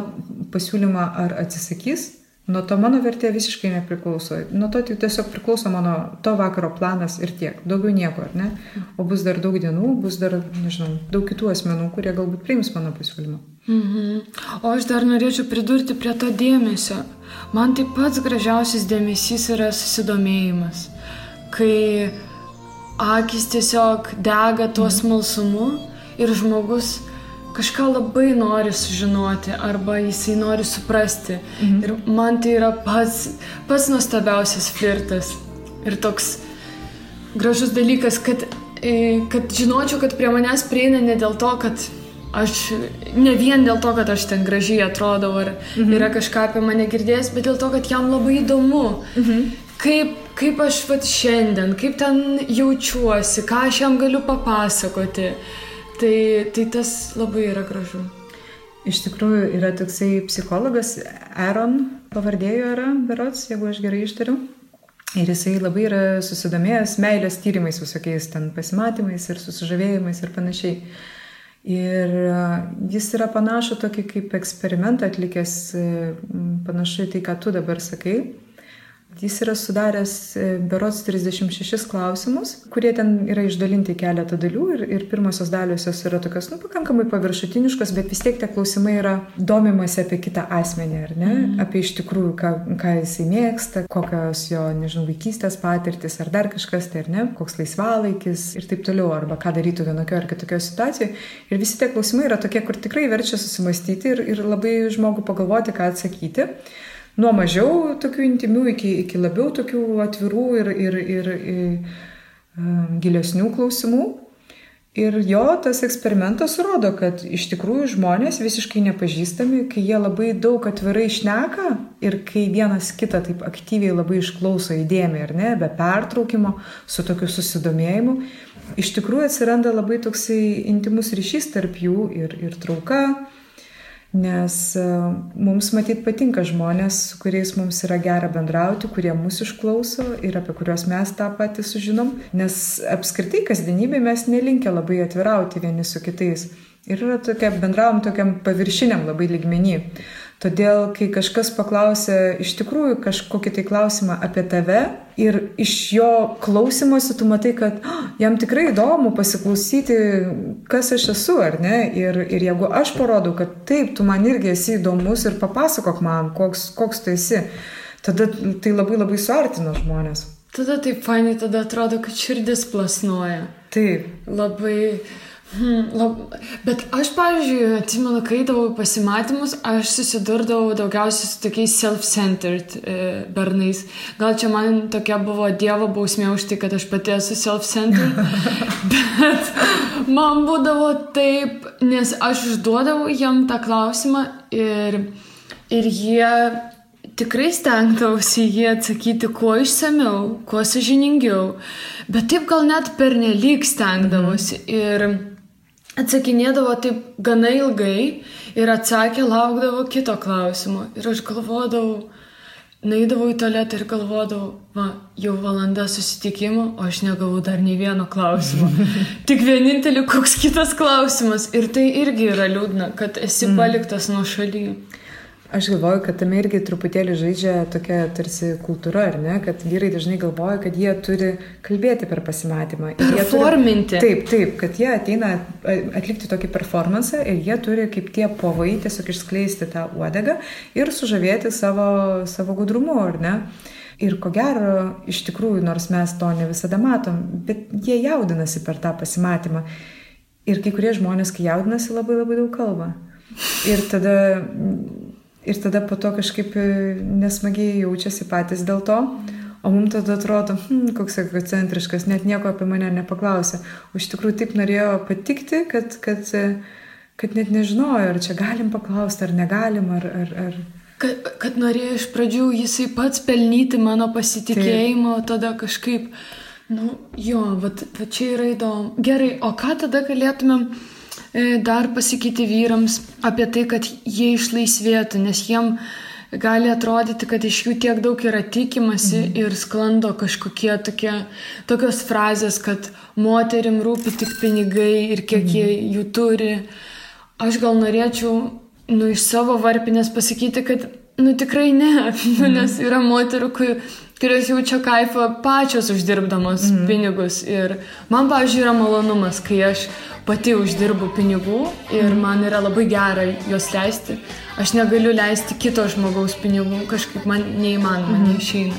pasiūlymą, ar atsisakys, nuo to mano vertė visiškai nepriklauso. Nuo to tiesiog priklauso mano to vakaro planas ir tiek. Daugiau nieko, ar ne? O bus dar daug dienų, bus dar, nežinau, daug kitų asmenų, kurie galbūt priims mano pasiūlymą. O aš dar norėčiau pridurti prie to dėmesio. Man tai pats gražiausias dėmesys yra susidomėjimas, kai akis tiesiog dega tuo smalsumu ir žmogus kažką labai nori sužinoti arba jisai nori suprasti. Ir man tai yra pats nuostabiausias flirtas ir toks gražus dalykas, kad žinočiau, kad prie manęs prieina ne dėl to, kad ne vien dėl to, kad aš ten gražiai atrodau ar yra kažką apie mane girdėjęs, bet dėl to, kad jam labai įdomu, kaip aš šiandien, kaip ten jaučiuosi, ką aš jam galiu papasakoti. Tai tas labai yra gražu. Iš tikrųjų yra toksai psichologas, Aaron pavardėjo yra, berods, jeigu aš gerai ištariu. Ir jisai labai yra susidomėjęs meilės tyrimais visokiais ten pasimatymais ir susižavėjimais ir panašiai. Ir jis yra panašu tokį kaip eksperimentą atlikęs, panašu į tai, ką tu dabar sakai. Jis yra sudaręs berods 36 klausimus, kurie ten yra išdalinti keletą dalių ir pirmosios daliosios yra tokios, pakankamai paviršutiniškos, bet vis tiek tie klausimai yra domimasi apie kitą asmenį, ar ne? Apie iš tikrųjų, ką jisai mėgsta, kokios jo, vaikystės patirtis, ar dar kažkas, tai ar ne, koks laisvalaikis ir taip toliau, arba ką darytų vienokio ar kitokio situacijoje. Ir visi tie klausimai yra tokie, kur tikrai verčia susimastyti ir labai žmogų pagalvoti, ką atsakyti. Nuo mažiau tokių intimių iki labiau tokių atvirų ir gilesnių klausimų. Ir jo tas eksperimentas rodo, kad iš tikrųjų žmonės visiškai nepažįstami, kai jie labai daug atvirai šneka ir kai vienas kitą taip aktyviai labai išklauso įdėmiai, ar ne, be pertraukimo, su tokiu susidomėjimu, iš tikrųjų atsiranda labai toksai intimus ryšys tarp jų ir trauka. Nes mums matyt patinka žmonės, su kuriais mums yra gera bendrauti, kurie mūsų išklauso ir apie kuriuos mes tą patį sužinom, nes apskritai kasdienybėje mes nelinkę labai atvirauti vieni su kitais ir yra bendravom tokiam paviršiniam labai lygmenį. Todėl, kai kažkas paklausia iš tikrųjų kažkokį tai klausimą apie tave ir iš jo klausimosi tu matai, kad jam tikrai įdomu pasiklausyti, kas aš esu, ar ne? Ir jeigu aš parodau, kad taip, tu man irgi esi įdomus ir papasakok man, koks tu esi, tada tai labai labai suartina žmonės. Tada taip fainai, tada atrodo, kad širdis plasnoja. Taip. Labai... Bet aš, pavyzdžiui, atsimenu, kai eidavau į pasimatymus, aš susidurdavau daugiausiai su tokiais self-centered bernais. Gal čia man tokia buvo Dievo bausmė už tai, kad aš pati esu self-centered, bet man būdavo taip, nes aš užduodavau jam tą klausimą ir jie tikrai stengdavosi jį atsakyti kuo išsamiau, kuo sąžiningiau, bet taip gal net pernelyg stengdavosi ir atsakinėdavo taip gana ilgai ir atsakė, laukdavo kito klausimo. Ir aš galvodavau, nueidavau į tualetą ir galvodavau, jau valanda susitikimo, o aš negavau dar nei vieno klausimo. Tik vienintelį koks kitas klausimas. Ir tai irgi yra liūdna, kad esi paliktas nuošaly. Aš galvoju, kad tame irgi truputėlį žaidžia tokia tarsi kultūra, ar ne? Kad vyrai dažnai galvoja, kad jie turi kalbėti per pasimatymą. Performinti. Taip, kad jie ateina atlikti tokį performansą ir jie turi kaip tie povai tiesiog išskleisti tą uodegą ir sužavėti savo gudrumu, ar ne? Ir ko gero, iš tikrųjų, nors mes to ne visada matom, bet jie jaudinasi per tą pasimatymą. Ir kai kurie žmonės, kai jaudinasi, labai labai daug kalba. Ir tada po to kažkaip nesmagiai jaučiasi patys dėl to, o mums tada atrodo, koks egocentriškas, net nieko apie mane nepaklausė. O iš tikrųjų taip norėjo patikti, kad net nežinojo, ar čia galim paklausti, ar negalim, ar... Kad norėjo iš pradžių jisai pats pelnyti mano pasitikėjimo, o tada kažkaip, va čia yra įdomu. Gerai, o ką tada galėtumėm dar pasakyti vyrams apie tai, kad jie išlaisvėtų, nes jiem gali atrodyti, kad iš jų tiek daug yra tikimasi ir sklando kažkokie tokios frazės, kad moterim rūpi tik pinigai ir kiek jie jų turi. Aš gal norėčiau iš savo varpinės pasakyti, kad tikrai ne, nes yra moterų, kurios jaučia kaifą pačios uždirbdamos pinigus. Ir man, pavyzdžiui, yra malonumas, kai aš pati uždirbu pinigų ir man yra labai gera juos leisti. Aš negaliu leisti kito žmogaus pinigų, kažkaip man neįmanoma, neišeina.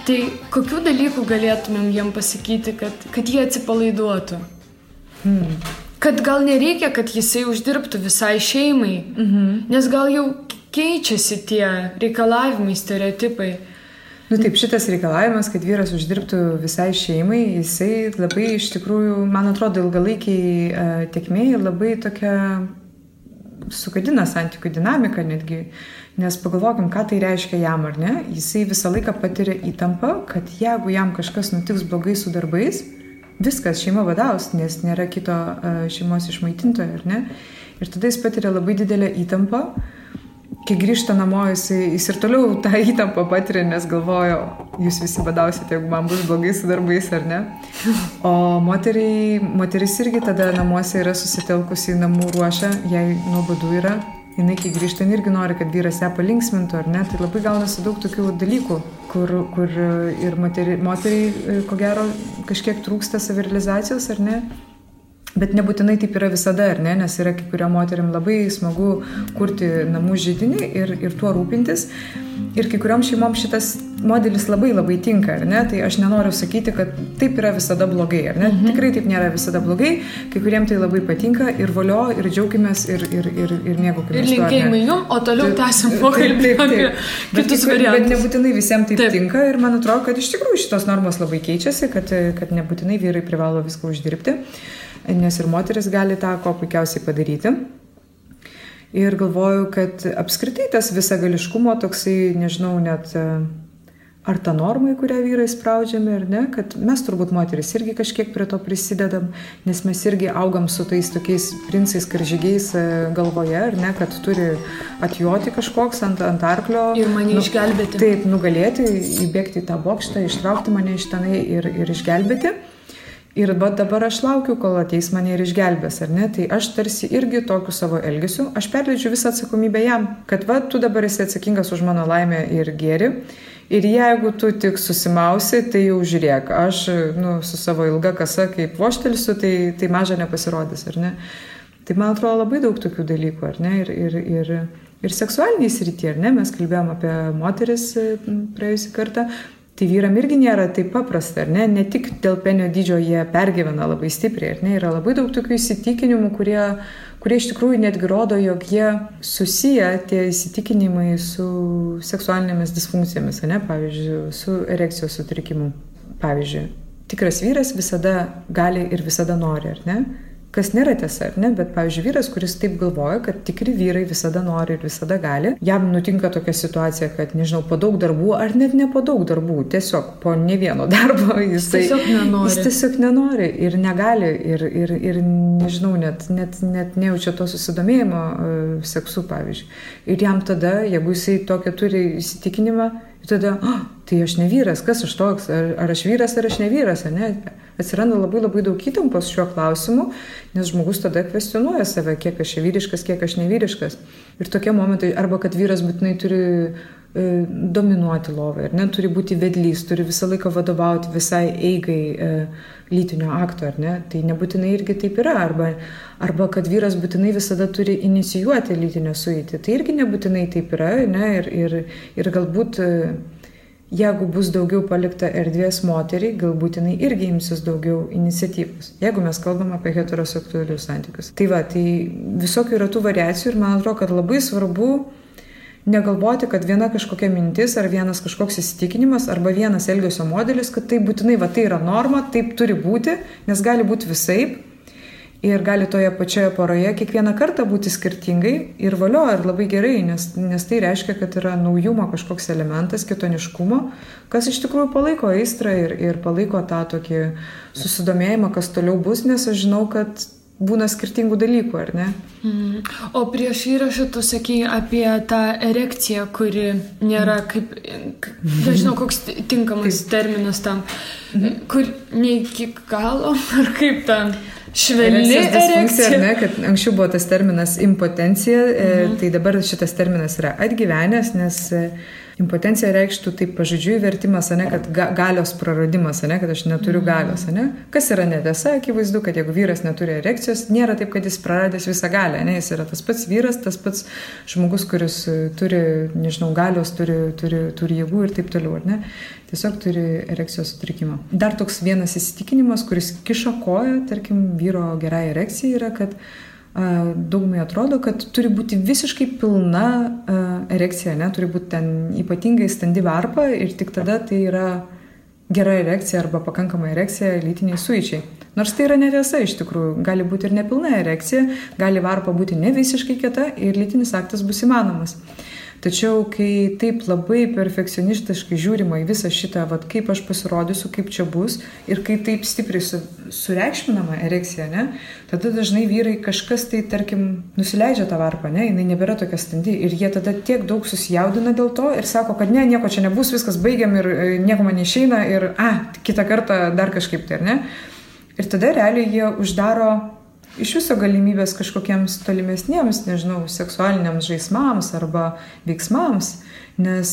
Tai kokių dalykų galėtumėm jiem pasakyti, kad jie atsipalaiduotų? Kad gal nereikia, kad jisai uždirbtų visai šeimai, nes gal jau keičiasi tie reikalavimai, stereotipai. Nu taip, šitas reikalavimas, kad vyras uždirbtų visai šeimai, jisai labai iš tikrųjų, man atrodo, ilgalaikiai tėkmėje labai tokia sugadina santykių dinamiką netgi, nes pagalvokim, ką tai reiškia jam, ar ne? Jisai visą laiką patiria įtampą, kad jeigu jam kažkas nutiks blogai su darbais, viskas, šeima vadaus, nes nėra kito šeimos išmaitintojo, ar ne? Ir tada jis patiria labai didelę įtampą. Kai grįžta namo, jis ir toliau tą įtampą patiria, nes galvojo, jūs visi badausite, jeigu man bus blogai su darbais, ar ne? O moteris irgi tada namuose yra susitelkusi, namų ruošia, jai nuobodu yra. Jinai, kai grįžta, irgi nori, kad vyras ją palinksmintų, ar ne? Tai labai gaunasi daug tokių dalykų, kur ir moteriai, ko gero, kažkiek trūksta savirealizacijos, ar ne? Bet nebūtinai taip yra visada, ar ne? Nes yra kai kuriam moteriam labai smagu kurti namų židinį ir tuo rūpintis. Ir kai kuriam šeimom šitas modelis labai labai tinka, ar ne? Tai aš nenoriu sakyti, kad taip yra visada blogai, ar ne? Tikrai taip nėra visada blogai. Kai kuriem tai labai patinka ir valio, ir džiaukimės, ir mėgaukimės. Ir linkėjimai jum, o toliau tęsim pokalbį apie kitus variantus. Bet nebūtinai visiems taip tinka ir man atrodo, kad iš tikrųjų šitos normos labai keičiasi, kad nebūtinai vyrai privalo viską uždirbti. Nes ir moteris gali tą ko puikiausiai padaryti. Ir galvoju, kad apskritai tas visagališkumo toksai, nežinau, net ar ta norma, į kurią vyrai spraudžiami, ar ne, kad mes turbūt moteris irgi kažkiek prie to prisidedam, nes mes irgi augam su tais tokiais princais karžygiais galvoje, ar ne, kad turi atjoti kažkoks ant arklio. Ir mane išgelbėti. Taip, nugalėti, įbėgti į tą bokštą, ištraukti mane iš tenai ir išgelbėti. Ir dabar aš laukiu, kol ateis mane ir išgelbės, ar ne? Tai aš tarsi irgi tokiu savo elgesiu, aš perleidžiu visą atsakomybę jam, kad tu dabar esi atsakingas už mano laimę ir gėrį. Ir jeigu tu tik susimausi, tai jau žiūrėk, aš su savo ilga kasa kaip voštelsiu, tai maža nepasirodys, ar ne? Tai man atrodo labai daug tokių dalykų, ar ne? Ir seksualiniai srityje, ar ne? Mes kalbėjom apie moteris praėjusį kartą. Tai vyram irgi nėra taip paprasta, ar ne? Ne tik dėl penio dydžio jie pergyvena labai stipriai, ar ne? Yra labai daug tokių įsitikinimų, kurie iš tikrųjų netgi rodo, jog jie susiję tie įsitikinimai su seksualinėmis disfunkcijomis, ar ne? Pavyzdžiui, su erekcijos sutrikimu. Pavyzdžiui, tikras vyras visada gali ir visada nori, ar ne? Kas nėra tiesa, ar ne? Bet, pavyzdžiui, vyras, kuris taip galvoja, kad tikri vyrai visada nori ir visada gali, jam nutinka tokia situacija, kad, nežinau, po daug darbų, ar net ne po daug darbų, tiesiog po ne vieno darbo jis tiesiog nenori ir negali ir nežinau, net nejaučia to susidomėjimo seksu, pavyzdžiui. Ir jam tada, jeigu jisai tokią turi įsitikinimą, tada, tai aš ne vyras, kas aš toks, ar aš vyras, ar aš ne vyras, ar ne? Atsiranda labai labai daug įtampos šiuo klausimu, nes žmogus tada kvestionuoja save, kiek aš vyriškas, kiek aš nevyriškas. Ir tokie momentai, arba kad vyras būtinai turi dominuoti lovai, ar ne, turi būti vedlys, turi visą laiką vadovauti visai eigai lytinio akto, ar ne, tai nebūtinai irgi taip yra, arba kad vyras būtinai visada turi inicijuoti lytinę sueitį, tai irgi nebūtinai taip yra, ne, ir galbūt jeigu bus daugiau palikta erdvės moteriai, galbūt jinai irgi imsis daugiau iniciatyvos, jeigu mes kalbam apie heteroseksualius santykius. Tai visokių yra tų variacijų ir man atrodo, kad labai svarbu negalvoti, kad viena kažkokia mintis ar vienas kažkoks įsitikinimas arba vienas elgesio modelis, kad tai būtinai tai yra norma, taip turi būti, nes gali būti visaip ir gali toje pačioje poroje kiekvieną kartą būti skirtingai ir valio, ir labai gerai, nes tai reiškia, kad yra naujumo kažkoks elementas, kitoniškumo, kas iš tikrųjų palaiko aistrą ir palaiko tą tokį susidomėjimą, kas toliau bus, nes aš žinau, kad būna skirtingų dalykų, ar ne? O prieš įrašą tu sakei apie tą erekciją, kuri nėra kaip, nežinau, koks tinkamas terminas tam, kur ne iki galo, ar kaip tam švelni erekcija. Ar ne, kad anksčiau buvo tas terminas impotencija, tai dabar šitas terminas yra atgyvenęs, nes Impotencija reikštų taip pažodžiui vertimas, ane, kad galios praradimas, ane, kad aš neturiu galios. Ane. Kas yra netiesa, akivaizdu, kad jeigu vyras neturi erekcijos, nėra taip, kad jis praradęs visą galią. Ane. Jis yra tas pats vyras, tas pats žmogus, kuris turi, nežinau, galios, turi jėgų ir taip toliau. Ne. Tiesiog turi erekcijos sutrikimą. Dar toks vienas įsitikinimas, kuris kiša koją, tarkim, vyro gerai erekcijai yra, kad daugumai atrodo, kad turi būti visiškai pilna erekcija, ne? Turi būti ten ypatingai standi varpa ir tik tada tai yra gera erekcija arba pakankama erekcija lytiniai suičiai. Nors tai yra netiesa iš tikrųjų. Gali būti ir nepilna erekcija, gali varpa būti ne visiškai kieta ir lytinis aktas bus įmanomas. Tačiau, kai taip labai perfekcionistiškai žiūrima į visą šitą, vat, kaip aš pasirodysiu, kaip čia bus, ir kai taip stipriai sureikšminama erekcija, ne, tada dažnai vyrai kažkas tai, tarkim, nusileidžia tą varpą, ne, jinai nebėra tokia standi, ir jie tada tiek daug susijaudina dėl to ir sako, kad ne, nieko čia nebus, viskas baigiam ir nieko man neišeina ir, kitą kartą dar kažkaip tai, ar ne. Ir tada realiai jie uždaro iš viso galimybės kažkokiems tolimesniems, nežinau, seksualiniams žaismams arba veiksmams, nes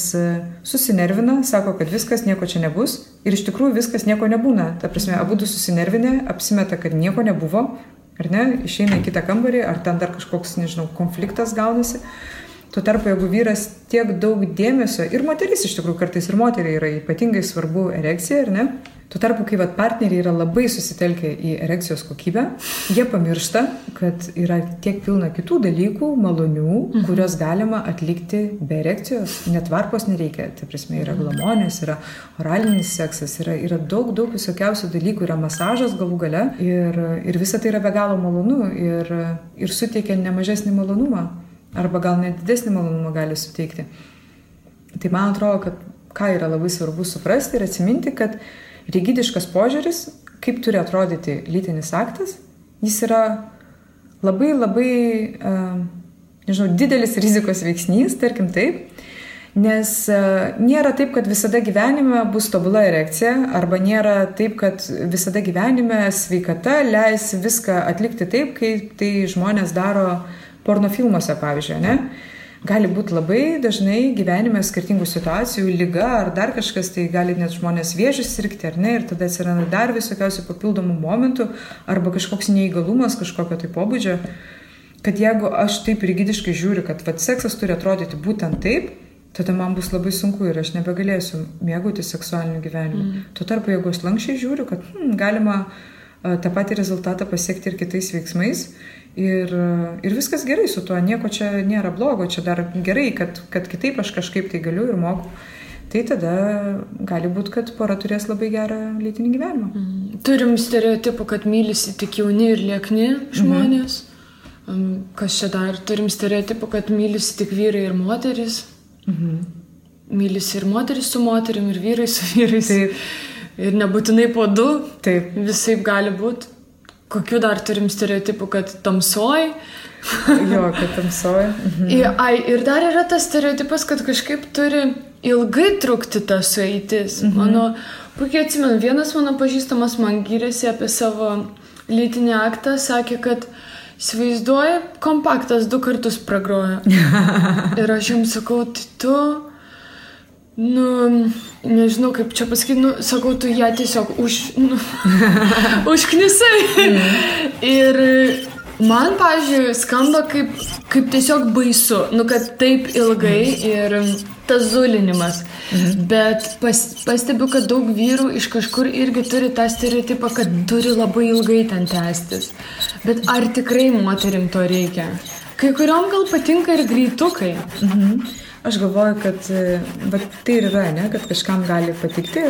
susinervina, sako, kad viskas, nieko čia nebus ir iš tikrųjų viskas nieko nebūna. Ta prasme, abudu susinervinę, apsimeta, kad nieko nebuvo, ar ne, išeina į kitą kambarį, ar ten dar kažkoks, nežinau, konfliktas gaunasi. Tuo tarpu, jeigu vyras tiek daug dėmesio, ir moteris iš tikrųjų kartais ir moteriai yra ypatingai svarbu erekcija, ar ne? Tuo tarpu, kai partneriai yra labai susitelkę į erekcijos kokybę, jie pamiršta, kad yra tiek pilna kitų dalykų, malonių, kurios galima atlikti be erekcijos. Net varpos nereikia. Tai prasme, yra glamonės, yra oralinis seksas, yra daug visokiausių dalykų, yra masažas galų gale ir visa tai yra be galo malonu ir suteikia nemažesnį malonumą. Arba gal net didesnį malonumą gali suteikti. Tai man atrodo, kad ką yra labai svarbu suprasti ir atsiminti, kad rigidiškas požiūris, kaip turi atrodyti lytinis aktas, jis yra labai, didelis rizikos veiksnys, tarkim taip, nes nėra taip, kad visada gyvenime bus tobula erekcija, arba nėra taip, kad visada gyvenime sveikata leis viską atlikti taip, kaip tai žmonės daro pornofilmuose, pavyzdžiui, ne? Gali būti labai dažnai gyvenime skirtingų situacijų, liga ar dar kažkas, tai gali net žmonės vėžį sirgti, ar ne, ir tada atsiranda dar visokiausių papildomų momentų, arba kažkoks neįgalumas kažkokio tai pobūdžio, kad jeigu aš taip rigidiškai žiūriu, kad seksas turi atrodyti būtent taip, tada man bus labai sunku ir aš nebegalėsiu mėgauti seksualiniu gyvenimu. Tuo tarpu, jeigu aš lankščiai žiūriu, kad galima tą patį rezultatą pasiekti ir kitais veiksmais, ir viskas gerai su tuo, nieko čia nėra blogo, čia dar gerai, kad kitaip aš kažkaip tai galiu ir moku. Tai tada gali būti, kad pora turės labai gerą lytinį gyvenimą. Turim stereotipų, kad mylisi tik jauni ir liekni žmonės. Kas čia dar? Turim stereotipų, kad mylisi tik vyrai ir moteris. Mylisi ir moteris su moterim, ir vyrai su vyrais. Taip. Ir nebūtinai po du. Taip. Visaip gali būti. Kokių dar turim stereotipų, kad tamsoj? Jo, kad tamsoj. Ir dar yra tas stereotipas, kad kažkaip turi ilgai trukti ta sueitis. Mano, puikiai atsimenu, vienas mano pažįstamas man gyrėsi apie savo lytinį aktą, sakė, kad įsivaizduoja, kompaktas 2 kartus pragroja. Ir aš jums sakau, tai tu... nežinau kaip čia pasakyti, sakau, tu ją tiesiog užknisai. Ir man, pavyzdžiui, skamba kaip tiesiog baisu, kad taip ilgai ir tas zulinimas. Bet pastebiu, kad daug vyrų iš kažkur irgi turi tą stereotipą, kad turi labai ilgai ten tęstis. Bet ar tikrai moterim to reikia? Kai kuriom gal patinka ir greitukai. Aš galvoju, kad tai ir yra, ne, kad kažkam gali patikti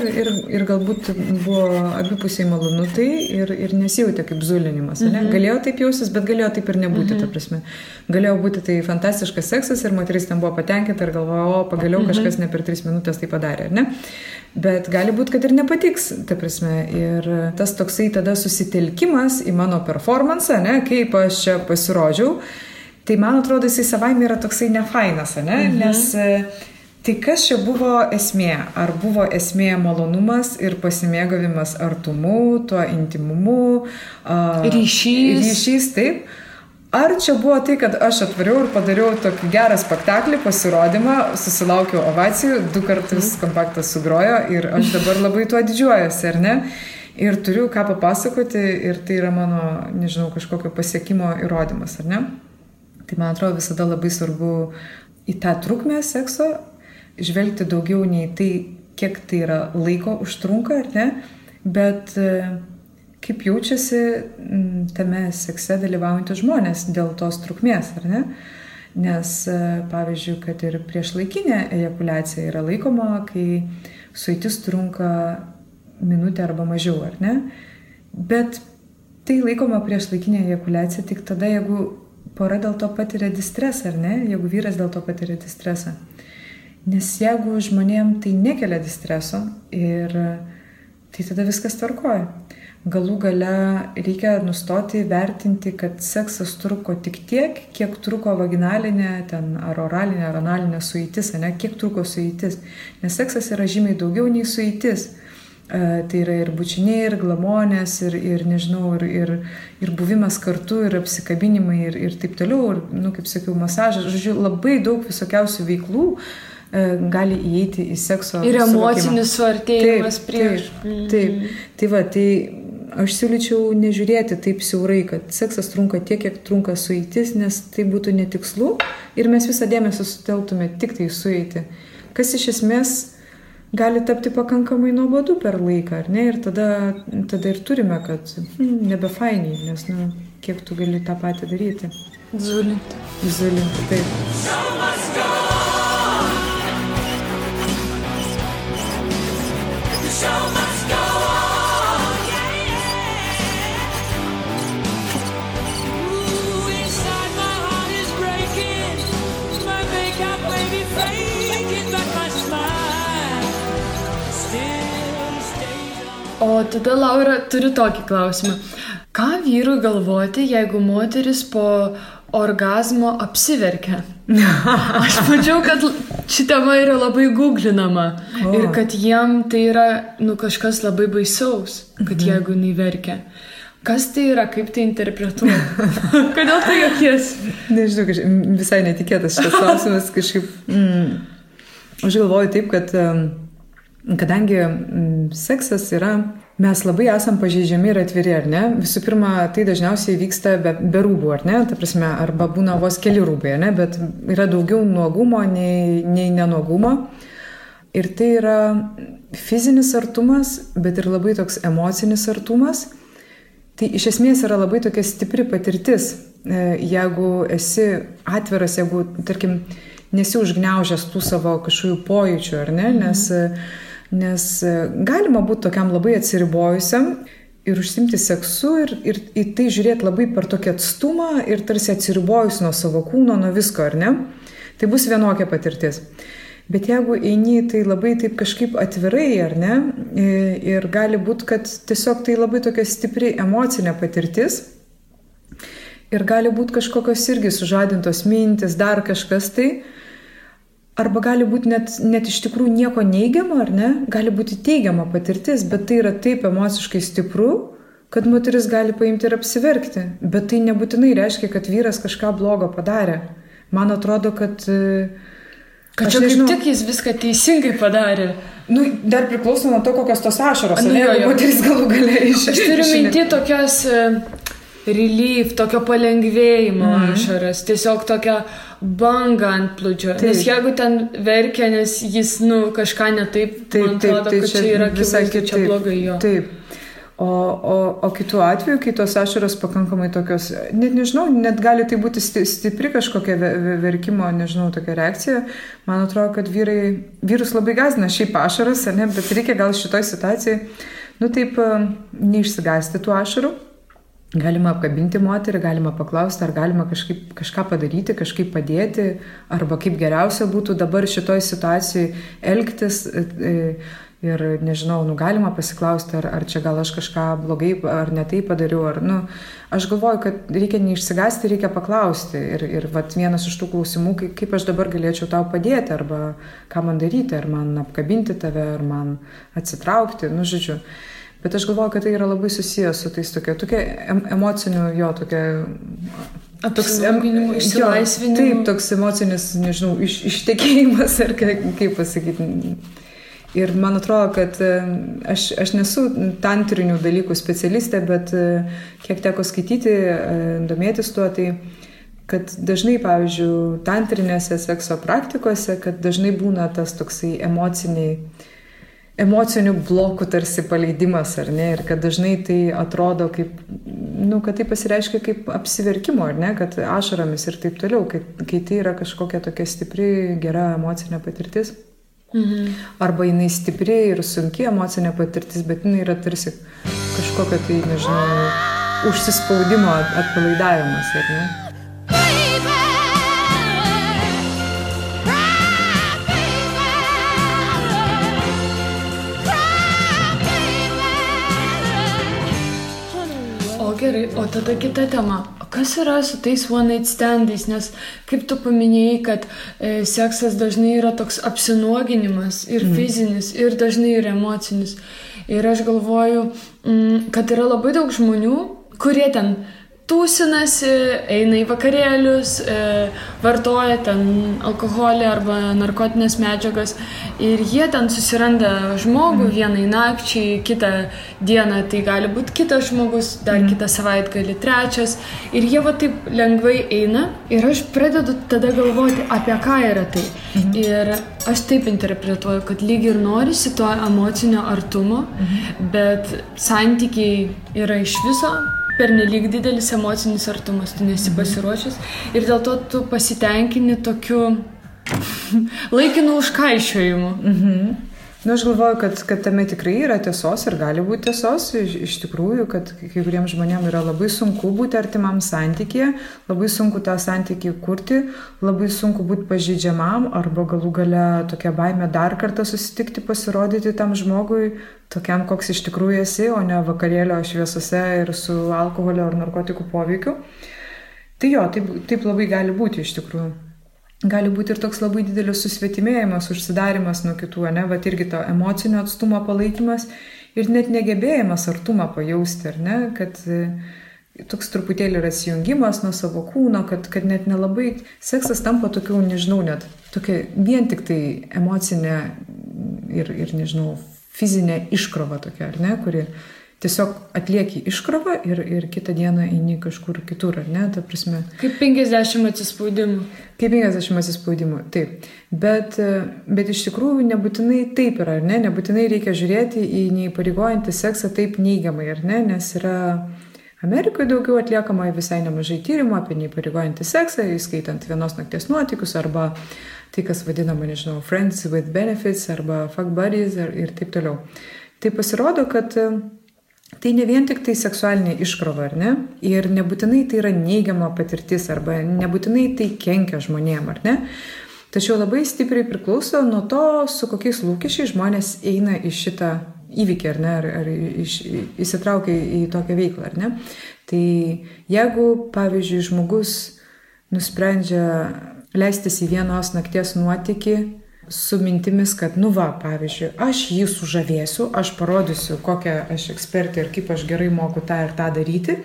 ir galbūt buvo abipusiai malonu tai ir nesijautė kaip zulinimas. Ne? Galėjo taip jausis, bet galėjo taip ir nebūti, ta prasme. Galėjo būti tai fantastiškas seksas ir moteris ten buvo patenkinta ir galvojo, pagaliau kažkas ne per 3 minutės tai padarė, ar ne? Bet gali būti, kad ir nepatiks, ta prasme. Ir tas toksai tada susitelkimas į mano performansą, ne, kaip aš čia pasirodžiau, tai man atrodo, jisai savaime yra toksai nefainas, ne? Nes tai kas čia buvo esmė? Ar buvo esmė malonumas ir pasimėgavimas artumu, tuo intimumu, ryšys, taip? Ar čia buvo tai, kad aš atvariau ir padariau tokį gerą spektaklį, pasirodymą, susilaukiau ovacijų, 2 kartus kompaktas sugrojo ir aš dabar labai tuo didžiuojuosi, ar ne? Ir turiu ką papasakoti ir tai yra mano, nežinau, kažkokio pasiekimo įrodymas, ar ne? Tai man atrodo visada labai svarbu į tą trukmę sekso žvelgti daugiau nei tai, kiek tai yra laiko užtrunka, ar ne? Bet kaip jaučiasi tame sekse dalyvaujantys žmonės dėl tos trukmės, ar ne? Nes, pavyzdžiui, kad ir priešlaikinė ejakuliacija yra laikoma, kai sueitis trunka minutę arba mažiau, ar ne? Bet tai laikoma priešlaikinė ejakuliacija tik tada, jeigu pora dėl to patiria distresą, ar ne? Jeigu vyras dėl to patiria distresą. Nes jeigu žmonėm tai nekelia distreso ir tai tada viskas tvarkoja. Galų gale reikia nustoti vertinti, kad seksas truko tik tiek, kiek truko vaginalinė, ten, ar oralinė, ar analinė sueitis, ne? Kiek truko sueitis. Nes seksas yra žymiai daugiau nei sueitis. Tai yra ir bučiniai, ir glamonės, ir nežinau, ir buvimas kartu, ir apsikabinimai, ir taip toliau, ir, kaip sakiau, masažas. Žodžiu, labai daug visokiausių veiklų gali įeiti į sekso ir emocinis suartėjimas prieš. Taip. Tai va, tai aš siūlyčiau nežiūrėti taip siaurai, kad seksas trunka tiek, kiek trunka sueitis, nes tai būtų netikslu ir mes visą dėmesį sutelktume tik tai sueiti. Kas iš esmės gali tapti pakankamai nuobodu per laiką, ar ne? Ir tada ir turime, kad nebefainiai, nes, kiek tu gali tą patį daryti. Zulinti, taip. O tada, Laura, turiu tokį klausimą. Ką vyrui galvoti, jeigu moteris po orgazmo apsiverkia? Aš mačiau, kad ši tema yra labai googlinama ir kad jiem tai yra kažkas labai baisaus, kad jeigu jinai verkia. Kas tai yra, kaip tai interpretuoja? Kodėl tai jokiesi? Nežinau, visai netikėtas šitas klausimas kažkaip. Aš galvoju taip, kad kadangi seksas yra, mes labai esam pažeidžiami ir atviri, ar ne? Visų pirma, tai dažniausiai vyksta be rūbų, ar ne? Ta prasme, arba būna vos keli rūbai, ar ne? Bet yra daugiau nuogumo nei nenuogumo. Ir tai yra fizinis artumas, bet ir labai toks emocinis artumas. Tai iš esmės yra labai tokia stipri patirtis. Jeigu esi atviras, jeigu, tarkim, nesi užgniaužęs tų savo kažkokių pojūčių, ar ne? Nes galima būti tokiam labai atsiribojusiam ir užsimti seksu ir į tai žiūrėti labai per tokį atstumą ir tarsi atsiribojus nuo savo kūno, nuo visko, ar ne? Tai bus vienokia patirtis. Bet jeigu eini tai labai taip kažkaip atvirai, ar ne? Ir gali būti, kad tiesiog tai labai tokia stipri emocinė patirtis ir gali būti kažkokios irgi sužadintos mintis, dar kažkas tai. Arba gali būti net iš tikrųjų nieko neigiamo, ar ne? Gali būti teigiama patirtis, bet tai yra taip emociškai stipru, kad moteris gali paimti ir apsiverkti. Bet tai nebūtinai reiškia, kad vyras kažką blogo padarė. Man atrodo, kad čia kaip tik jis viską teisingai padarė. Dar priklauso nuo to, kokios tos ašaros, ne? Moteris galų gale iš. Aš turiu minti tokias relief, tokio palengvėjimo ašaras, tiesiog tokia banga ant plūdžio. Nes jeigu ten verkia, nes jis kažką ne taip, man atrodo, kad čia yra akivaizdu, čia blogai jo. Taip. O kitu atveju, kai tos ašaros pakankamai tokios, net nežinau, net gali tai būti stipri kažkokia verkimo, nežinau, tokia reakcija. Man atrodo, kad vyrus labai gąsdina šiaip ašaras, ne, bet reikia gal šitoj situacijai, taip neišsigąsti tų ašarų. Galima apkabinti moterį, galima paklausti, ar galima kažką padaryti, kažkaip padėti, arba kaip geriausia būtų dabar šitoj situacijai elgtis. Ir nežinau, galima pasiklausti, ar čia gal aš kažką blogai, ar ne taip padariau, aš galvoju, kad reikia neišsigąsti, reikia paklausti. Ir vienas iš tų klausimų, kaip aš dabar galėčiau tau padėti, arba ką man daryti, ar man apkabinti tave, ar man atsitraukti, žodžiu. Bet aš galvoju, kad tai yra labai susijęs su tais tokia emociniu, tokia apsilankinimo, išsilaisvinimo. Taip, toks emocinis, nežinau, ištekėjimas, ar kaip pasakyti. Ir man atrodo, kad aš nesu tantrinių dalykų specialistė, bet kiek teko skaityti, domėtis tuo, tai kad dažnai, pavyzdžiui, tantrinėse sekso praktikose, kad dažnai būna tas toksai emocinių blokų tarsi paleidimas, ar ne, ir kad dažnai tai atrodo kaip, kad tai pasireiškia kaip apsiverkimo, ar ne, kad ašaromis ir taip toliau, kai tai yra kažkokia tokia stipri, gera emocinė patirtis. Arba jinai stipri ir sunki emocinė patirtis, bet jinai yra tarsi kažkokia tai, nežinau, užsispaudimo atpalaidavimas, ar ne? Gerai, o tada kita tema. Kas yra su tais one night standais? Nes kaip tu paminėjai, kad seksas dažnai yra toks apsinuoginimas ir fizinis, ir dažnai ir emocinis. Ir aš galvoju, kad yra labai daug žmonių, kurie ten tūsinasi, eina į vakarėlius, vartoja ten alkoholį arba narkotinės medžiagas ir jie ten susiranda žmogų vienai nakčiai, kitą dieną tai gali būti kitas žmogus, dar kitą savaitgalį trečias ir jie va taip lengvai eina ir aš pradedu tada galvoti, apie ką yra tai. Ir aš taip interpretuoju, kad lyg ir norisi to emocinio artumo, bet santykiai yra iš viso pernelyg didelis emocinis artumas, tu nesi pasiruošęs ir dėl to tu pasitenkini tokiu laikinu užkaišiojimu. Aš galvoju, kad tame tikrai yra tiesos ir gali būti tiesos, iš tikrųjų, kad kai kuriems žmonėms yra labai sunku būti artimam santykyje, labai sunku tą santykį kurti, labai sunku būti pažeidžiamam arba galų gale tokia baimė dar kartą susitikti, pasirodyti tam žmogui, tokiam, koks iš tikrųjų esi, o ne vakarėlio šviesose ir su alkoholio ar narkotikų poveikiu. Tai jo, taip labai gali būti iš tikrųjų. Gali būti ir toks labai didelis susvetimėjimas, užsidarimas nuo kitų, ne, bet irgi to emocinio atstumo palaikymas ir net negebėjimas artumą pajausti, ar ne, kad toks truputėlį yra atsijungimas nuo savo kūno, kad net nelabai seksas tampa tokiu, nežinau, net tokia vien tik tai emocinė ir nežinau, fizinė iškrova tokia, ar ne, kuri tiesiog atlieki iškrovą ir kitą dieną eini kažkur kitur, ar ne, ta prasme. Kaip 50 atsispaudimų. Kaip 50 atsispaudimų, taip. Bet iš tikrųjų nebūtinai taip yra, ar ne, nebūtinai reikia žiūrėti į neįpareigojantį seksą taip neigiamai, ar ne, nes yra Amerikoje daugiau atliekama visai nemažai tyrimų apie neįpareigojantį seksą, įskaitant vienos nakties nuotykius arba tai, kas vadinama, nežinau, friends with benefits arba fuck buddies ir taip toliau. Tai pasirodo, kad tai ne vien tik tai seksualinė iškrova, ar ne? Ir nebūtinai tai yra neigiama patirtis arba nebūtinai tai kenkia žmonėm, ar ne? Tačiau labai stipriai priklauso nuo to, su kokiais lūkesčiais žmonės eina į šitą įvykį, ar ne? Ar įsitraukia į tokią veiklą, ar ne? Tai jeigu, pavyzdžiui, žmogus nusprendžia leistis į vienos nakties nuotykį su mintimis, kad, pavyzdžiui, aš jį sužavėsiu, aš parodysiu, kokią aš ekspertė ir kaip aš gerai moku tą ir tą daryti.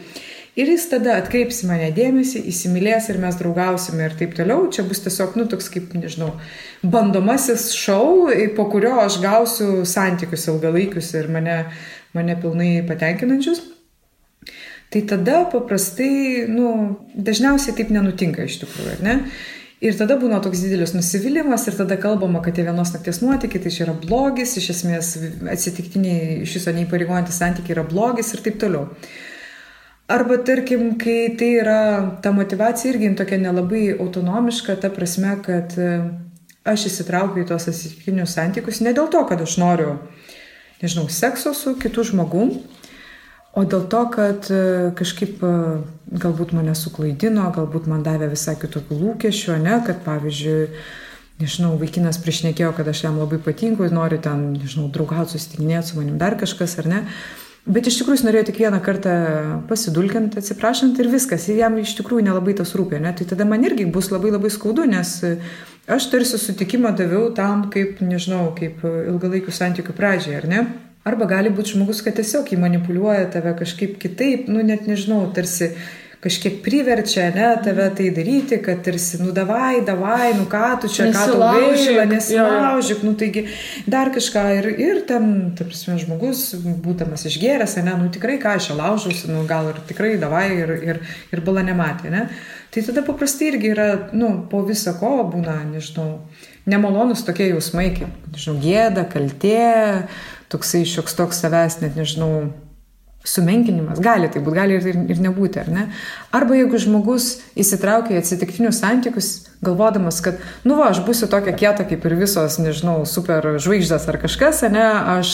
Ir jis tada atkreips mane dėmesį, įsimylės ir mes draugausime ir taip toliau. Čia bus tiesiog, toks kaip, nežinau, bandomasis šou, po kurio aš gausiu santykius ilgalaikius ir mane pilnai patenkinančius. Tai tada paprastai, dažniausiai taip nenutinka iš tikrųjų, ar ne? Ir tada būna toks didelis nusivylimas ir tada kalbama, kad tie vienos nakties nuotykiai, tai čia yra blogis, iš esmės atsitiktiniai iš viso neįpareigojantys santykiai yra blogis ir taip toliau. Arba tarkim, kai tai yra, ta motyvacija irgi tokia nelabai autonomiška, ta prasme, kad aš įsitraukiu į tos atsitiktinius santykius ne dėl to, kad aš noriu, nežinau, sekso su kitu žmogum, o dėl to, kad kažkaip galbūt mane suklaidino, galbūt man davė visai kitokių lūkesčių, ne, kad pavyzdžiui, nežinau, vaikinas priešnekėjo, kad aš jam labai patinku, nori ten, nežinau, draugauti, susitikinėti su manim dar kažkas, ar ne. Bet iš tikrųjų jis norėjo tik vieną kartą pasidulkinti, atsiprašant ir viskas, ir jam iš tikrųjų nelabai tas rūpė, ne. Tai tada man irgi bus labai labai skaudu, nes aš tarsi sutikimą daviau tam, kaip, nežinau, kaip ilgalaikių santykių pradžiai, ar ne. Arba gali būti žmogus, kad tiesiog jį manipuliuoja tave kažkaip kitaip, net nežinau, tarsi kažkiek priverčia, ne, tave tai daryti, kad tarsi, davai, ką tu čia, ką tau gaila, nesilaužyk, taigi dar kažką ir ten, ta prasme, žmogus, būdamas išgėręs, ne, tikrai ką aš čia laužausi, gal ir tikrai davai ir bala nematė, ne. Tai tada paprastai irgi yra, po viso ko būna, nežinau, nemalonus tokie jausmai, kaip, nežinau, gėda, kaltė, toksai šioks toks savęs, net nežinau, sumenkinimas. Gali tai būti, gali ir nebūti, ar ne? Arba jeigu žmogus įsitraukia į atsitiktinius santykius, galvodamas, kad, aš būsiu tokia kieta kaip ir visos, nežinau, super žvaigždės ar kažkas, ne? Aš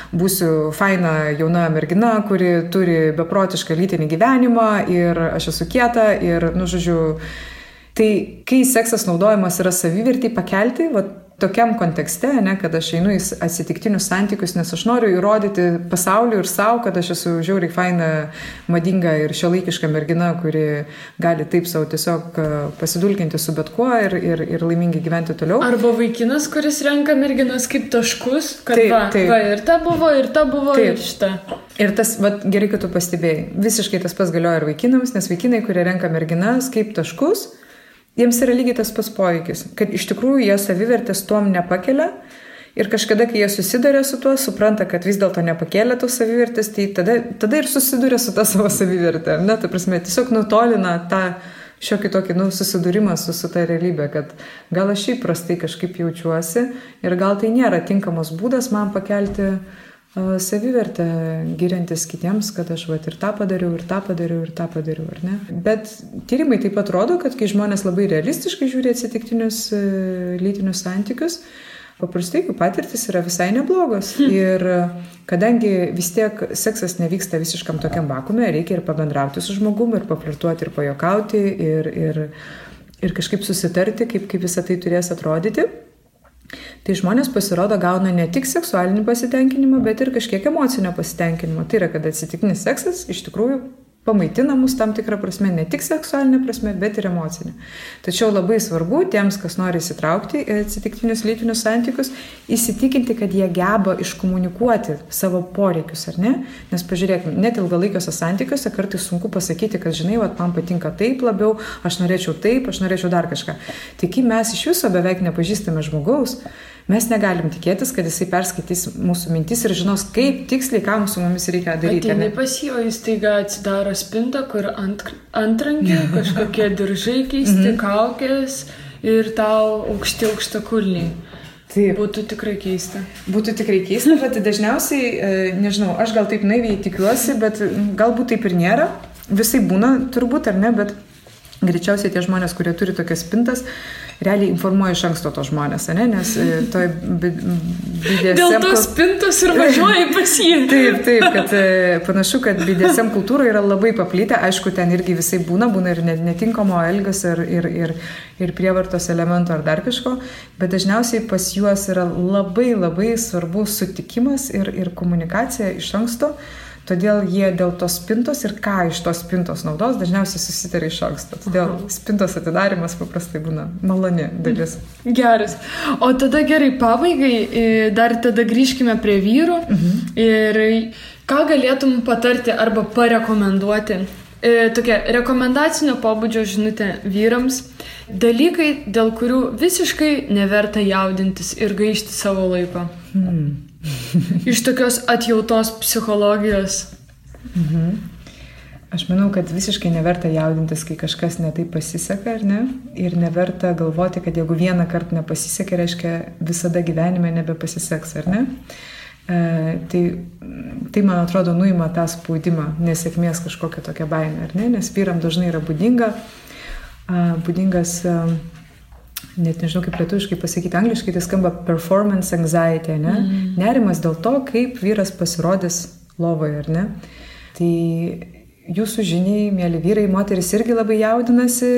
būsiu faina jauna mergina, kuri turi beprotišką lytinį gyvenimą ir aš esu kieta ir, žodžiu, tai kai seksas naudojamas yra savivertį pakelti, tokiam kontekste, ne, kad aš einu į atsitiktinius santykius, nes aš noriu įrodyti pasauliu ir savo, kad aš esu žiauriai faina, madinga ir šiuolaikiška mergina, kuri gali taip savo tiesiog pasidulkinti su bet kuo ir laimingai gyventi toliau. Arba vaikinas, kuris renka merginas kaip taškus, kad ir ta buvo, ir šita. Ir tas, gerai, kad tu pastebėjai, visiškai tas pats galioja ir vaikinams, nes vaikinai, kurie renka merginas kaip taškus, jiems yra lygiai tas pats poveikis, kad iš tikrųjų jie savivertės tuom nepakelia ir kažkada, kai jie susiduria su tuo, supranta, kad vis dėlto nepakėlė tos savivertės, tai tada ir susiduria su ta savo savivertė. Ne, ta prasme, tiesiog nutolina tą šiokį tokį susidūrimą su ta realybė, kad gal aš šiaip prastai kažkaip jaučiuosi ir gal tai nėra tinkamas būdas man pakelti savivertę, giriantis kitiems, kad aš ir tą padariau, ar ne? Bet tyrimai taip pat rodo, kad kai žmonės labai realistiškai žiūri atsitiktinius lytinius santykius, paprastai jų patirtis yra visai neblogos. Ir kadangi vis tiek seksas nevyksta visiškam tokiam vakume, reikia ir pabendrauti su žmogumi, ir paflirtuoti, ir pajuokauti, ir kažkaip susitarti, kaip visą tai turės atrodyti. Tai žmonės pasirodo gauna ne tik seksualinį pasitenkinimą, bet ir kažkiek emocinio pasitenkinimo. Tai yra, kad atsitiktinis seksas iš tikrųjų pamaitina mus tam tikrą prasme, ne tik seksualinė prasme, bet ir emocinė. Tačiau labai svarbu tiems, kas nori įsitraukti į atsitiktinius lytinius santykius, įsitikinti, kad jie geba iškomunikuoti savo poreikius, ar ne? Nes pažiūrėkime, net ilgalaikiuose santykiuose kartais sunku pasakyti, kad žinai, man patinka taip labiau, aš norėčiau dar kažką. Tai kai mes iš viso beveik nepažįstame žmogaus, mes negalim tikėtis, kad jisai perskaitys mūsų mintis ir žinos, kaip tiksliai, ką su mumis reikia daryti. Ateini pas jį, o jis taiga atsidaro spintą, kur antrankiai, kažkokie diržai keisti, kaukės ir tau aukštakulniai. Taip. Būtų tikrai keista. Bet dažniausiai, nežinau, aš gal taip naiviai tikiuosi, bet galbūt taip ir nėra. Visai būna turbūt, ar ne, bet greičiausiai tie žmonės, kurie turi tokias spintas, realiai informuoja iš anksto to žmonės, ne? Nes toj BDSM... Dėl tos spintos ir važiuoja pas jį. Taip, kad panašu, kad BDSM kultūra yra labai paplitę, aišku, ten irgi visai būna ir netinkamo elgesio ir prievartos elemento ar dar kažko, bet dažniausiai pas juos yra labai labai svarbus sutikimas ir komunikacija iš anksto. Todėl jie dėl tos spintos ir ką iš tos spintos naudos dažniausiai susitarė iš anksto. Todėl spintos atidarimas paprastai būna maloni dalis. Geras. O tada gerai, pabaigai, dar tada grįžkime prie vyrų. Ir ką galėtum patarti arba parekomenduoti? Tokia rekomendacinio pobūdžio žinutė vyrams. Dalykai, dėl kurių visiškai neverta jaudintis ir gaišti savo laiko. Iš tokios atjautos psichologijos. Aš manau, kad visiškai neverta jaudintis, kai kažkas netaip pasiseka, ar ne? Ir neverta galvoti, kad jeigu vieną kartą nepasisekė, reiškia visada gyvenime nebepasiseks, ar ne? Tai man atrodo, nuima tą spaudimą, nesėkmės kažkokią tokią baimę, ar ne? Nes vyram dažnai yra būdingas net nežinau kaip lietuviškai pasakyti, angliškai tai skamba performance anxiety, ne? Nerimas dėl to, kaip vyras pasirodys lovoje, ar ne? Tai jūsų žiniai, mėly vyrai, moteris irgi labai jaudinasi,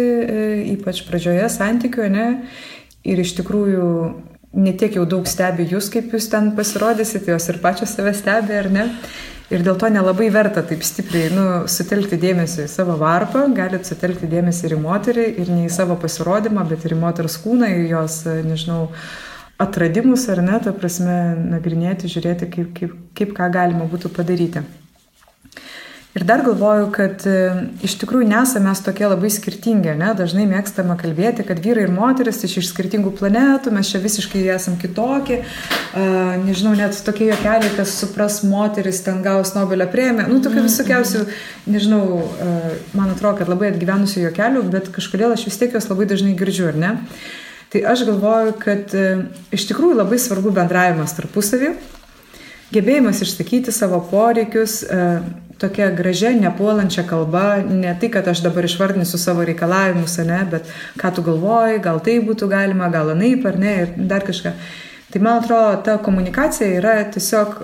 ypač pradžioje santykių, ne? Ir iš tikrųjų ne tiek jau daug stebi jūs, kaip jūs ten pasirodysite, jos ir pačios save stebi, ar ne? Ir dėl to nelabai verta taip stipriai sutelkti dėmesį į savo varpą, galit sutelkti dėmesį ir į moterį, ir ne į savo pasirodymą, bet ir į moters kūną, į jos, nežinau, atradimus, ar ne, ta prasme, nagrinėti, žiūrėti, kaip ką galima būtų padaryti. Ir dar galvoju, kad iš tikrųjų nesame mes tokie labai skirtingi, ne? Dažnai mėgstama kalbėti, kad vyrai ir moteris iš skirtingų planetų, mes čia visiškai esam kitokie. Nežinau, net tokie juokeliai, kas supras moteris, ten gaus Nobelio premiją. Tokių visokiausių, nežinau, man atrodo, kad labai atgyvenusių juokelių, bet kažkodėl aš vis tiek jos labai dažnai girdžiu, ar ne? Tai aš galvoju, kad iš tikrųjų labai svarbu bendravimas tarpusavį, gebėjimas išsakyti savo poreikius, tokia gražia, nepuolančia kalba, ne tai, kad aš dabar išvardinsiu savo reikalavimus, ne, bet ką tu galvoji, gal tai būtų galima, gal anaip, ar ne, ir dar kažką. Tai man atrodo, ta komunikacija yra tiesiog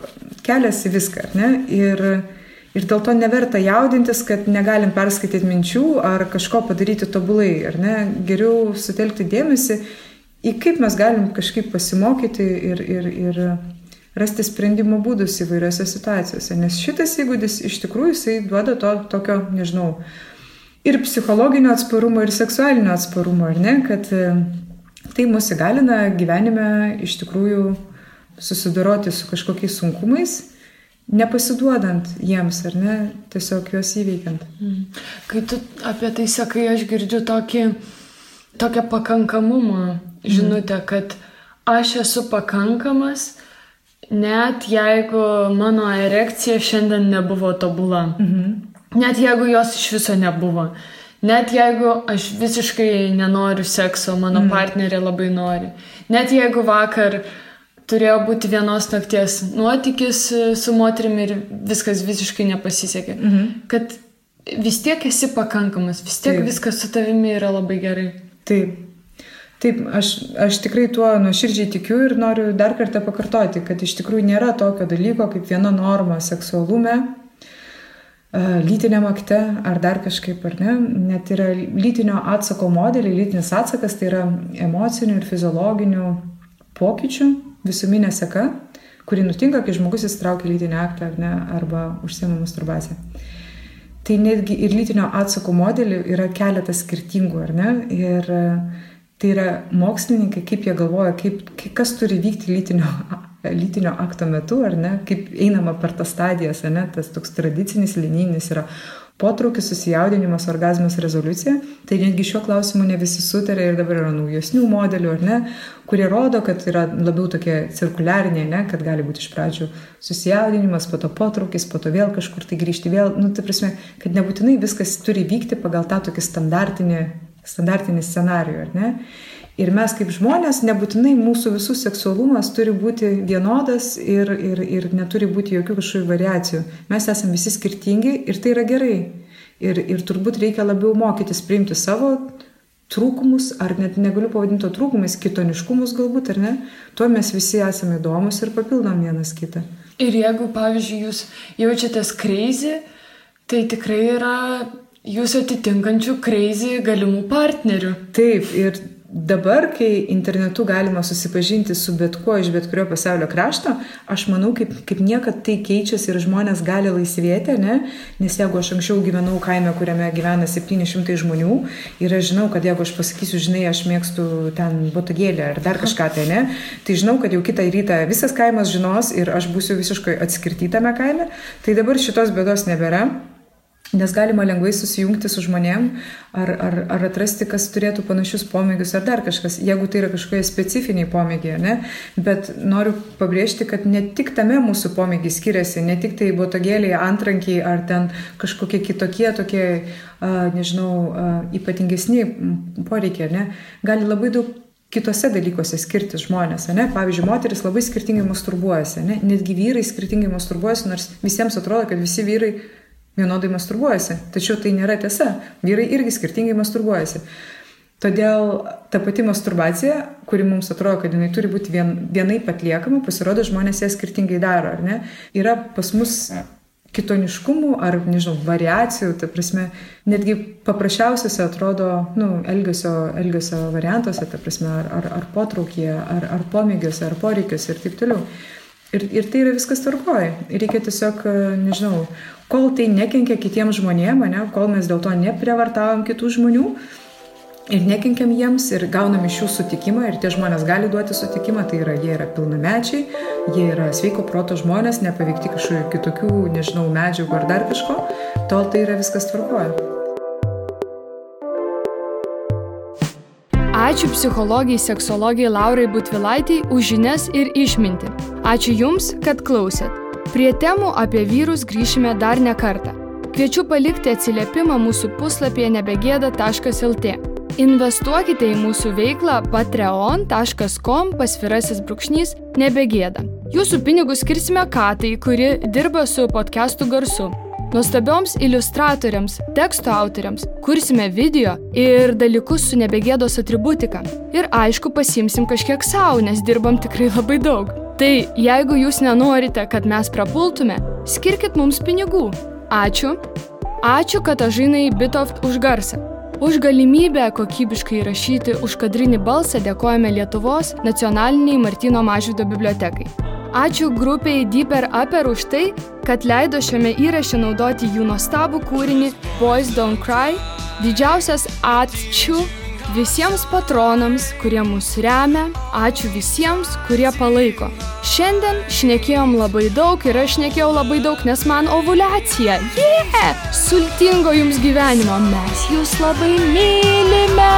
kelias į viską, ar ne, ir dėl to neverta jaudintis, kad negalim perskaityti minčių ar kažko padaryti tobulai, ar ne, geriau sutelkti dėmesį į kaip mes galim kažkaip pasimokyti ir rasti sprendimo būdus įvairiose situacijose, nes šitas įgūdis iš tikrųjų jisai duoda tokio, nežinau, ir psichologinio atsparumo, ir seksualinio atsparumo, ar ne, kad tai mus įgalina gyvenime iš tikrųjų susidoroti su kažkokiais sunkumais, nepasiduodant jiems, ar ne, tiesiog juos įveikiant. Kai tu apie tai sakai, aš girdžiu tokią pakankamumo žinutę, kad aš esu pakankamas, net jeigu mano erekcija šiandien nebuvo tobula, net jeigu jos iš viso nebuvo, net jeigu aš visiškai nenoriu sekso, mano partnerė labai nori, net jeigu vakar turėjo būti vienos nakties nuotykis su moterimi ir viskas visiškai nepasisekė, kad vis tiek esi pakankamas, vis tiek viskas su tavimi yra labai gerai. Taip, aš tikrai tuo nuoširdžiai tikiu ir noriu dar kartą pakartoti, kad iš tikrųjų nėra tokio dalyko kaip viena norma seksualume, lytiniam akte ar dar kažkaip, ar ne. Net yra lytinio atsako modeliai, lytinis atsakas tai yra emocinių ir fiziologinių pokyčių visuminė seka, kuri nutinka, kai žmogus įsitraukia lytinį aktą ar ne, arba užsiema masturbaciją. Tai netgi ir lytinio atsako modelių yra keletas skirtingų, ar ne, ir tai yra mokslininkai, kaip jie galvoja, kas turi vykti lytinio akto metu, ar ne, kaip einama per tas stadijas, ar ne, tas toks tradicinis, linijinis yra potraukis, susijaudinimas, orgazmas, rezoliucija. Tai netgi šiuo klausimu ne visi sutarė ir dabar yra naujesnių modelių, ar ne, kurie rodo, kad yra labiau tokie cirkuliariniai, ne, kad gali būti iš pradžių susijaudinimas, po to potraukis, po to vėl kažkur tai grįžti vėl, tai prasme, kad nebūtinai viskas turi vykti pagal tą tokį standartinį scenarijų, ar ne? Ir mes kaip žmonės, nebūtinai mūsų visų seksualumas turi būti vienodas ir neturi būti jokių kažkokių variacijų. Mes esame visi skirtingi ir tai yra gerai. Ir turbūt reikia labiau mokytis priimti savo trūkumus, ar net negaliu pavadinti trūkumais, kitoniškumus galbūt, ar ne? Tuo mes visi esame įdomus ir papildom vienas kitą. Ir jeigu, pavyzdžiui, jūs jaučiatės crazy, tai tikrai yra jūs atitinkančių crazy galimų partnerių. Taip, ir dabar, kai internetu galima susipažinti su bet kuo iš bet kurio pasaulio krašto, aš manau, kaip niekad tai keičiasi ir žmonės gali laisvėti, ne? Nes jeigu aš anksčiau gyvenau kaime, kuriame gyvena 700 žmonių ir aš žinau, kad jeigu aš pasakysiu, žinai, aš mėgstu ten botagėlę ar dar kažką tai, ne? Tai žinau, kad jau kitą rytą visas kaimas žinos ir aš būsiu visiškai atskirtytame kaime, tai dabar šitos bėdos nebėra. Nes galima lengvai susijungti su žmonėm ar atrasti, kas turėtų panašius pomėgius ar dar kažkas, jeigu tai yra kažkokie specifiniai pomėgiai, ne? Bet noriu pabrėžti, kad ne tik tame mūsų pomėgiai skiriasi, ne tik tai botagėliai, antrankiai ar ten kažkokie kitokie, tokie, ypatingesni poreikiai, ne? Gali labai daug kitose dalykuose skirtis žmonės, ne? Pavyzdžiui, moteris labai skirtingai masturbuojasi, ne? Netgi vyrai skirtingai masturbuojasi, nors visiems atrodo, kad visi vyrai vienodai masturbuojasi. Tačiau tai nėra tiesa. Vyrai irgi skirtingai masturbuojasi. Todėl ta pati masturbacija, kuri mums atrodo, kad jinai turi būti vienaip atliekama, pasirodo, žmonės ją skirtingai daro, ar ne? Yra pas mus kitoniškumų ar, variacijų, ta prasme, netgi paprasčiausiose atrodo, elgesio variantuose, ta prasme, ar potraukyje, ar pomėgiuose, ar poreikiuose ir taip toliau. Ir tai yra viskas tvarkoje. Reikia tiesiog, kol tai nekenkia kitiems žmonėms, kol mes dėl to neprievartavom kitų žmonių ir nekenkiam jiems ir gaunam iš jų sutikimą ir tie žmonės gali duoti sutikimą, tai yra, jie yra pilnamečiai, jie yra sveiko proto žmonės, nepaveikti kažkokių kitokių, nežinau, medžiagų ar dar kažko, tol tai yra viskas tvarkoja. Ačiū psichologijai, seksologijai Laurai Butvilaitei už žinias ir išmintį. Ačiū Jums, kad klausėt. Prie temų apie vyrus grįšime dar ne kartą. Kviečiu palikti atsiliepimą mūsų puslapyje nebegėda.lt. Investuokite į mūsų veiklą patreon.com/nebegėda. Jūsų pinigus skirsime Katai, kuri dirba su podcastų garsu. Nuostabioms iliustratoriams, teksto autoriams kursime video ir dalykus su nebegėdos atributika. Ir aišku, pasiimsim kažkiek savo, nes dirbam tikrai labai daug. Tai jeigu jūs nenorite, kad mes prapultume, skirkit mums pinigų. Ačiū. Ačiū Katažinai Bitoft už garsą. Už galimybę kokybiškai įrašyti užkadrinį balsą dėkojame Lietuvos nacionaliniai Martyno Mažvydo bibliotekai. Ačiū grupiai Deeper Upper už tai, kad leido šiame įraše naudoti jų nuostabų kūrinį Boys Don't Cry. Didžiausias ačiū visiems patronams, kurie mus remia. Ačiū visiems, kurie palaiko. Šiandien šnekėjom labai daug ir aš šnekėjau labai daug, nes man ovuliacija. Sultingo jums gyvenimo. Mes jūs labai mylime.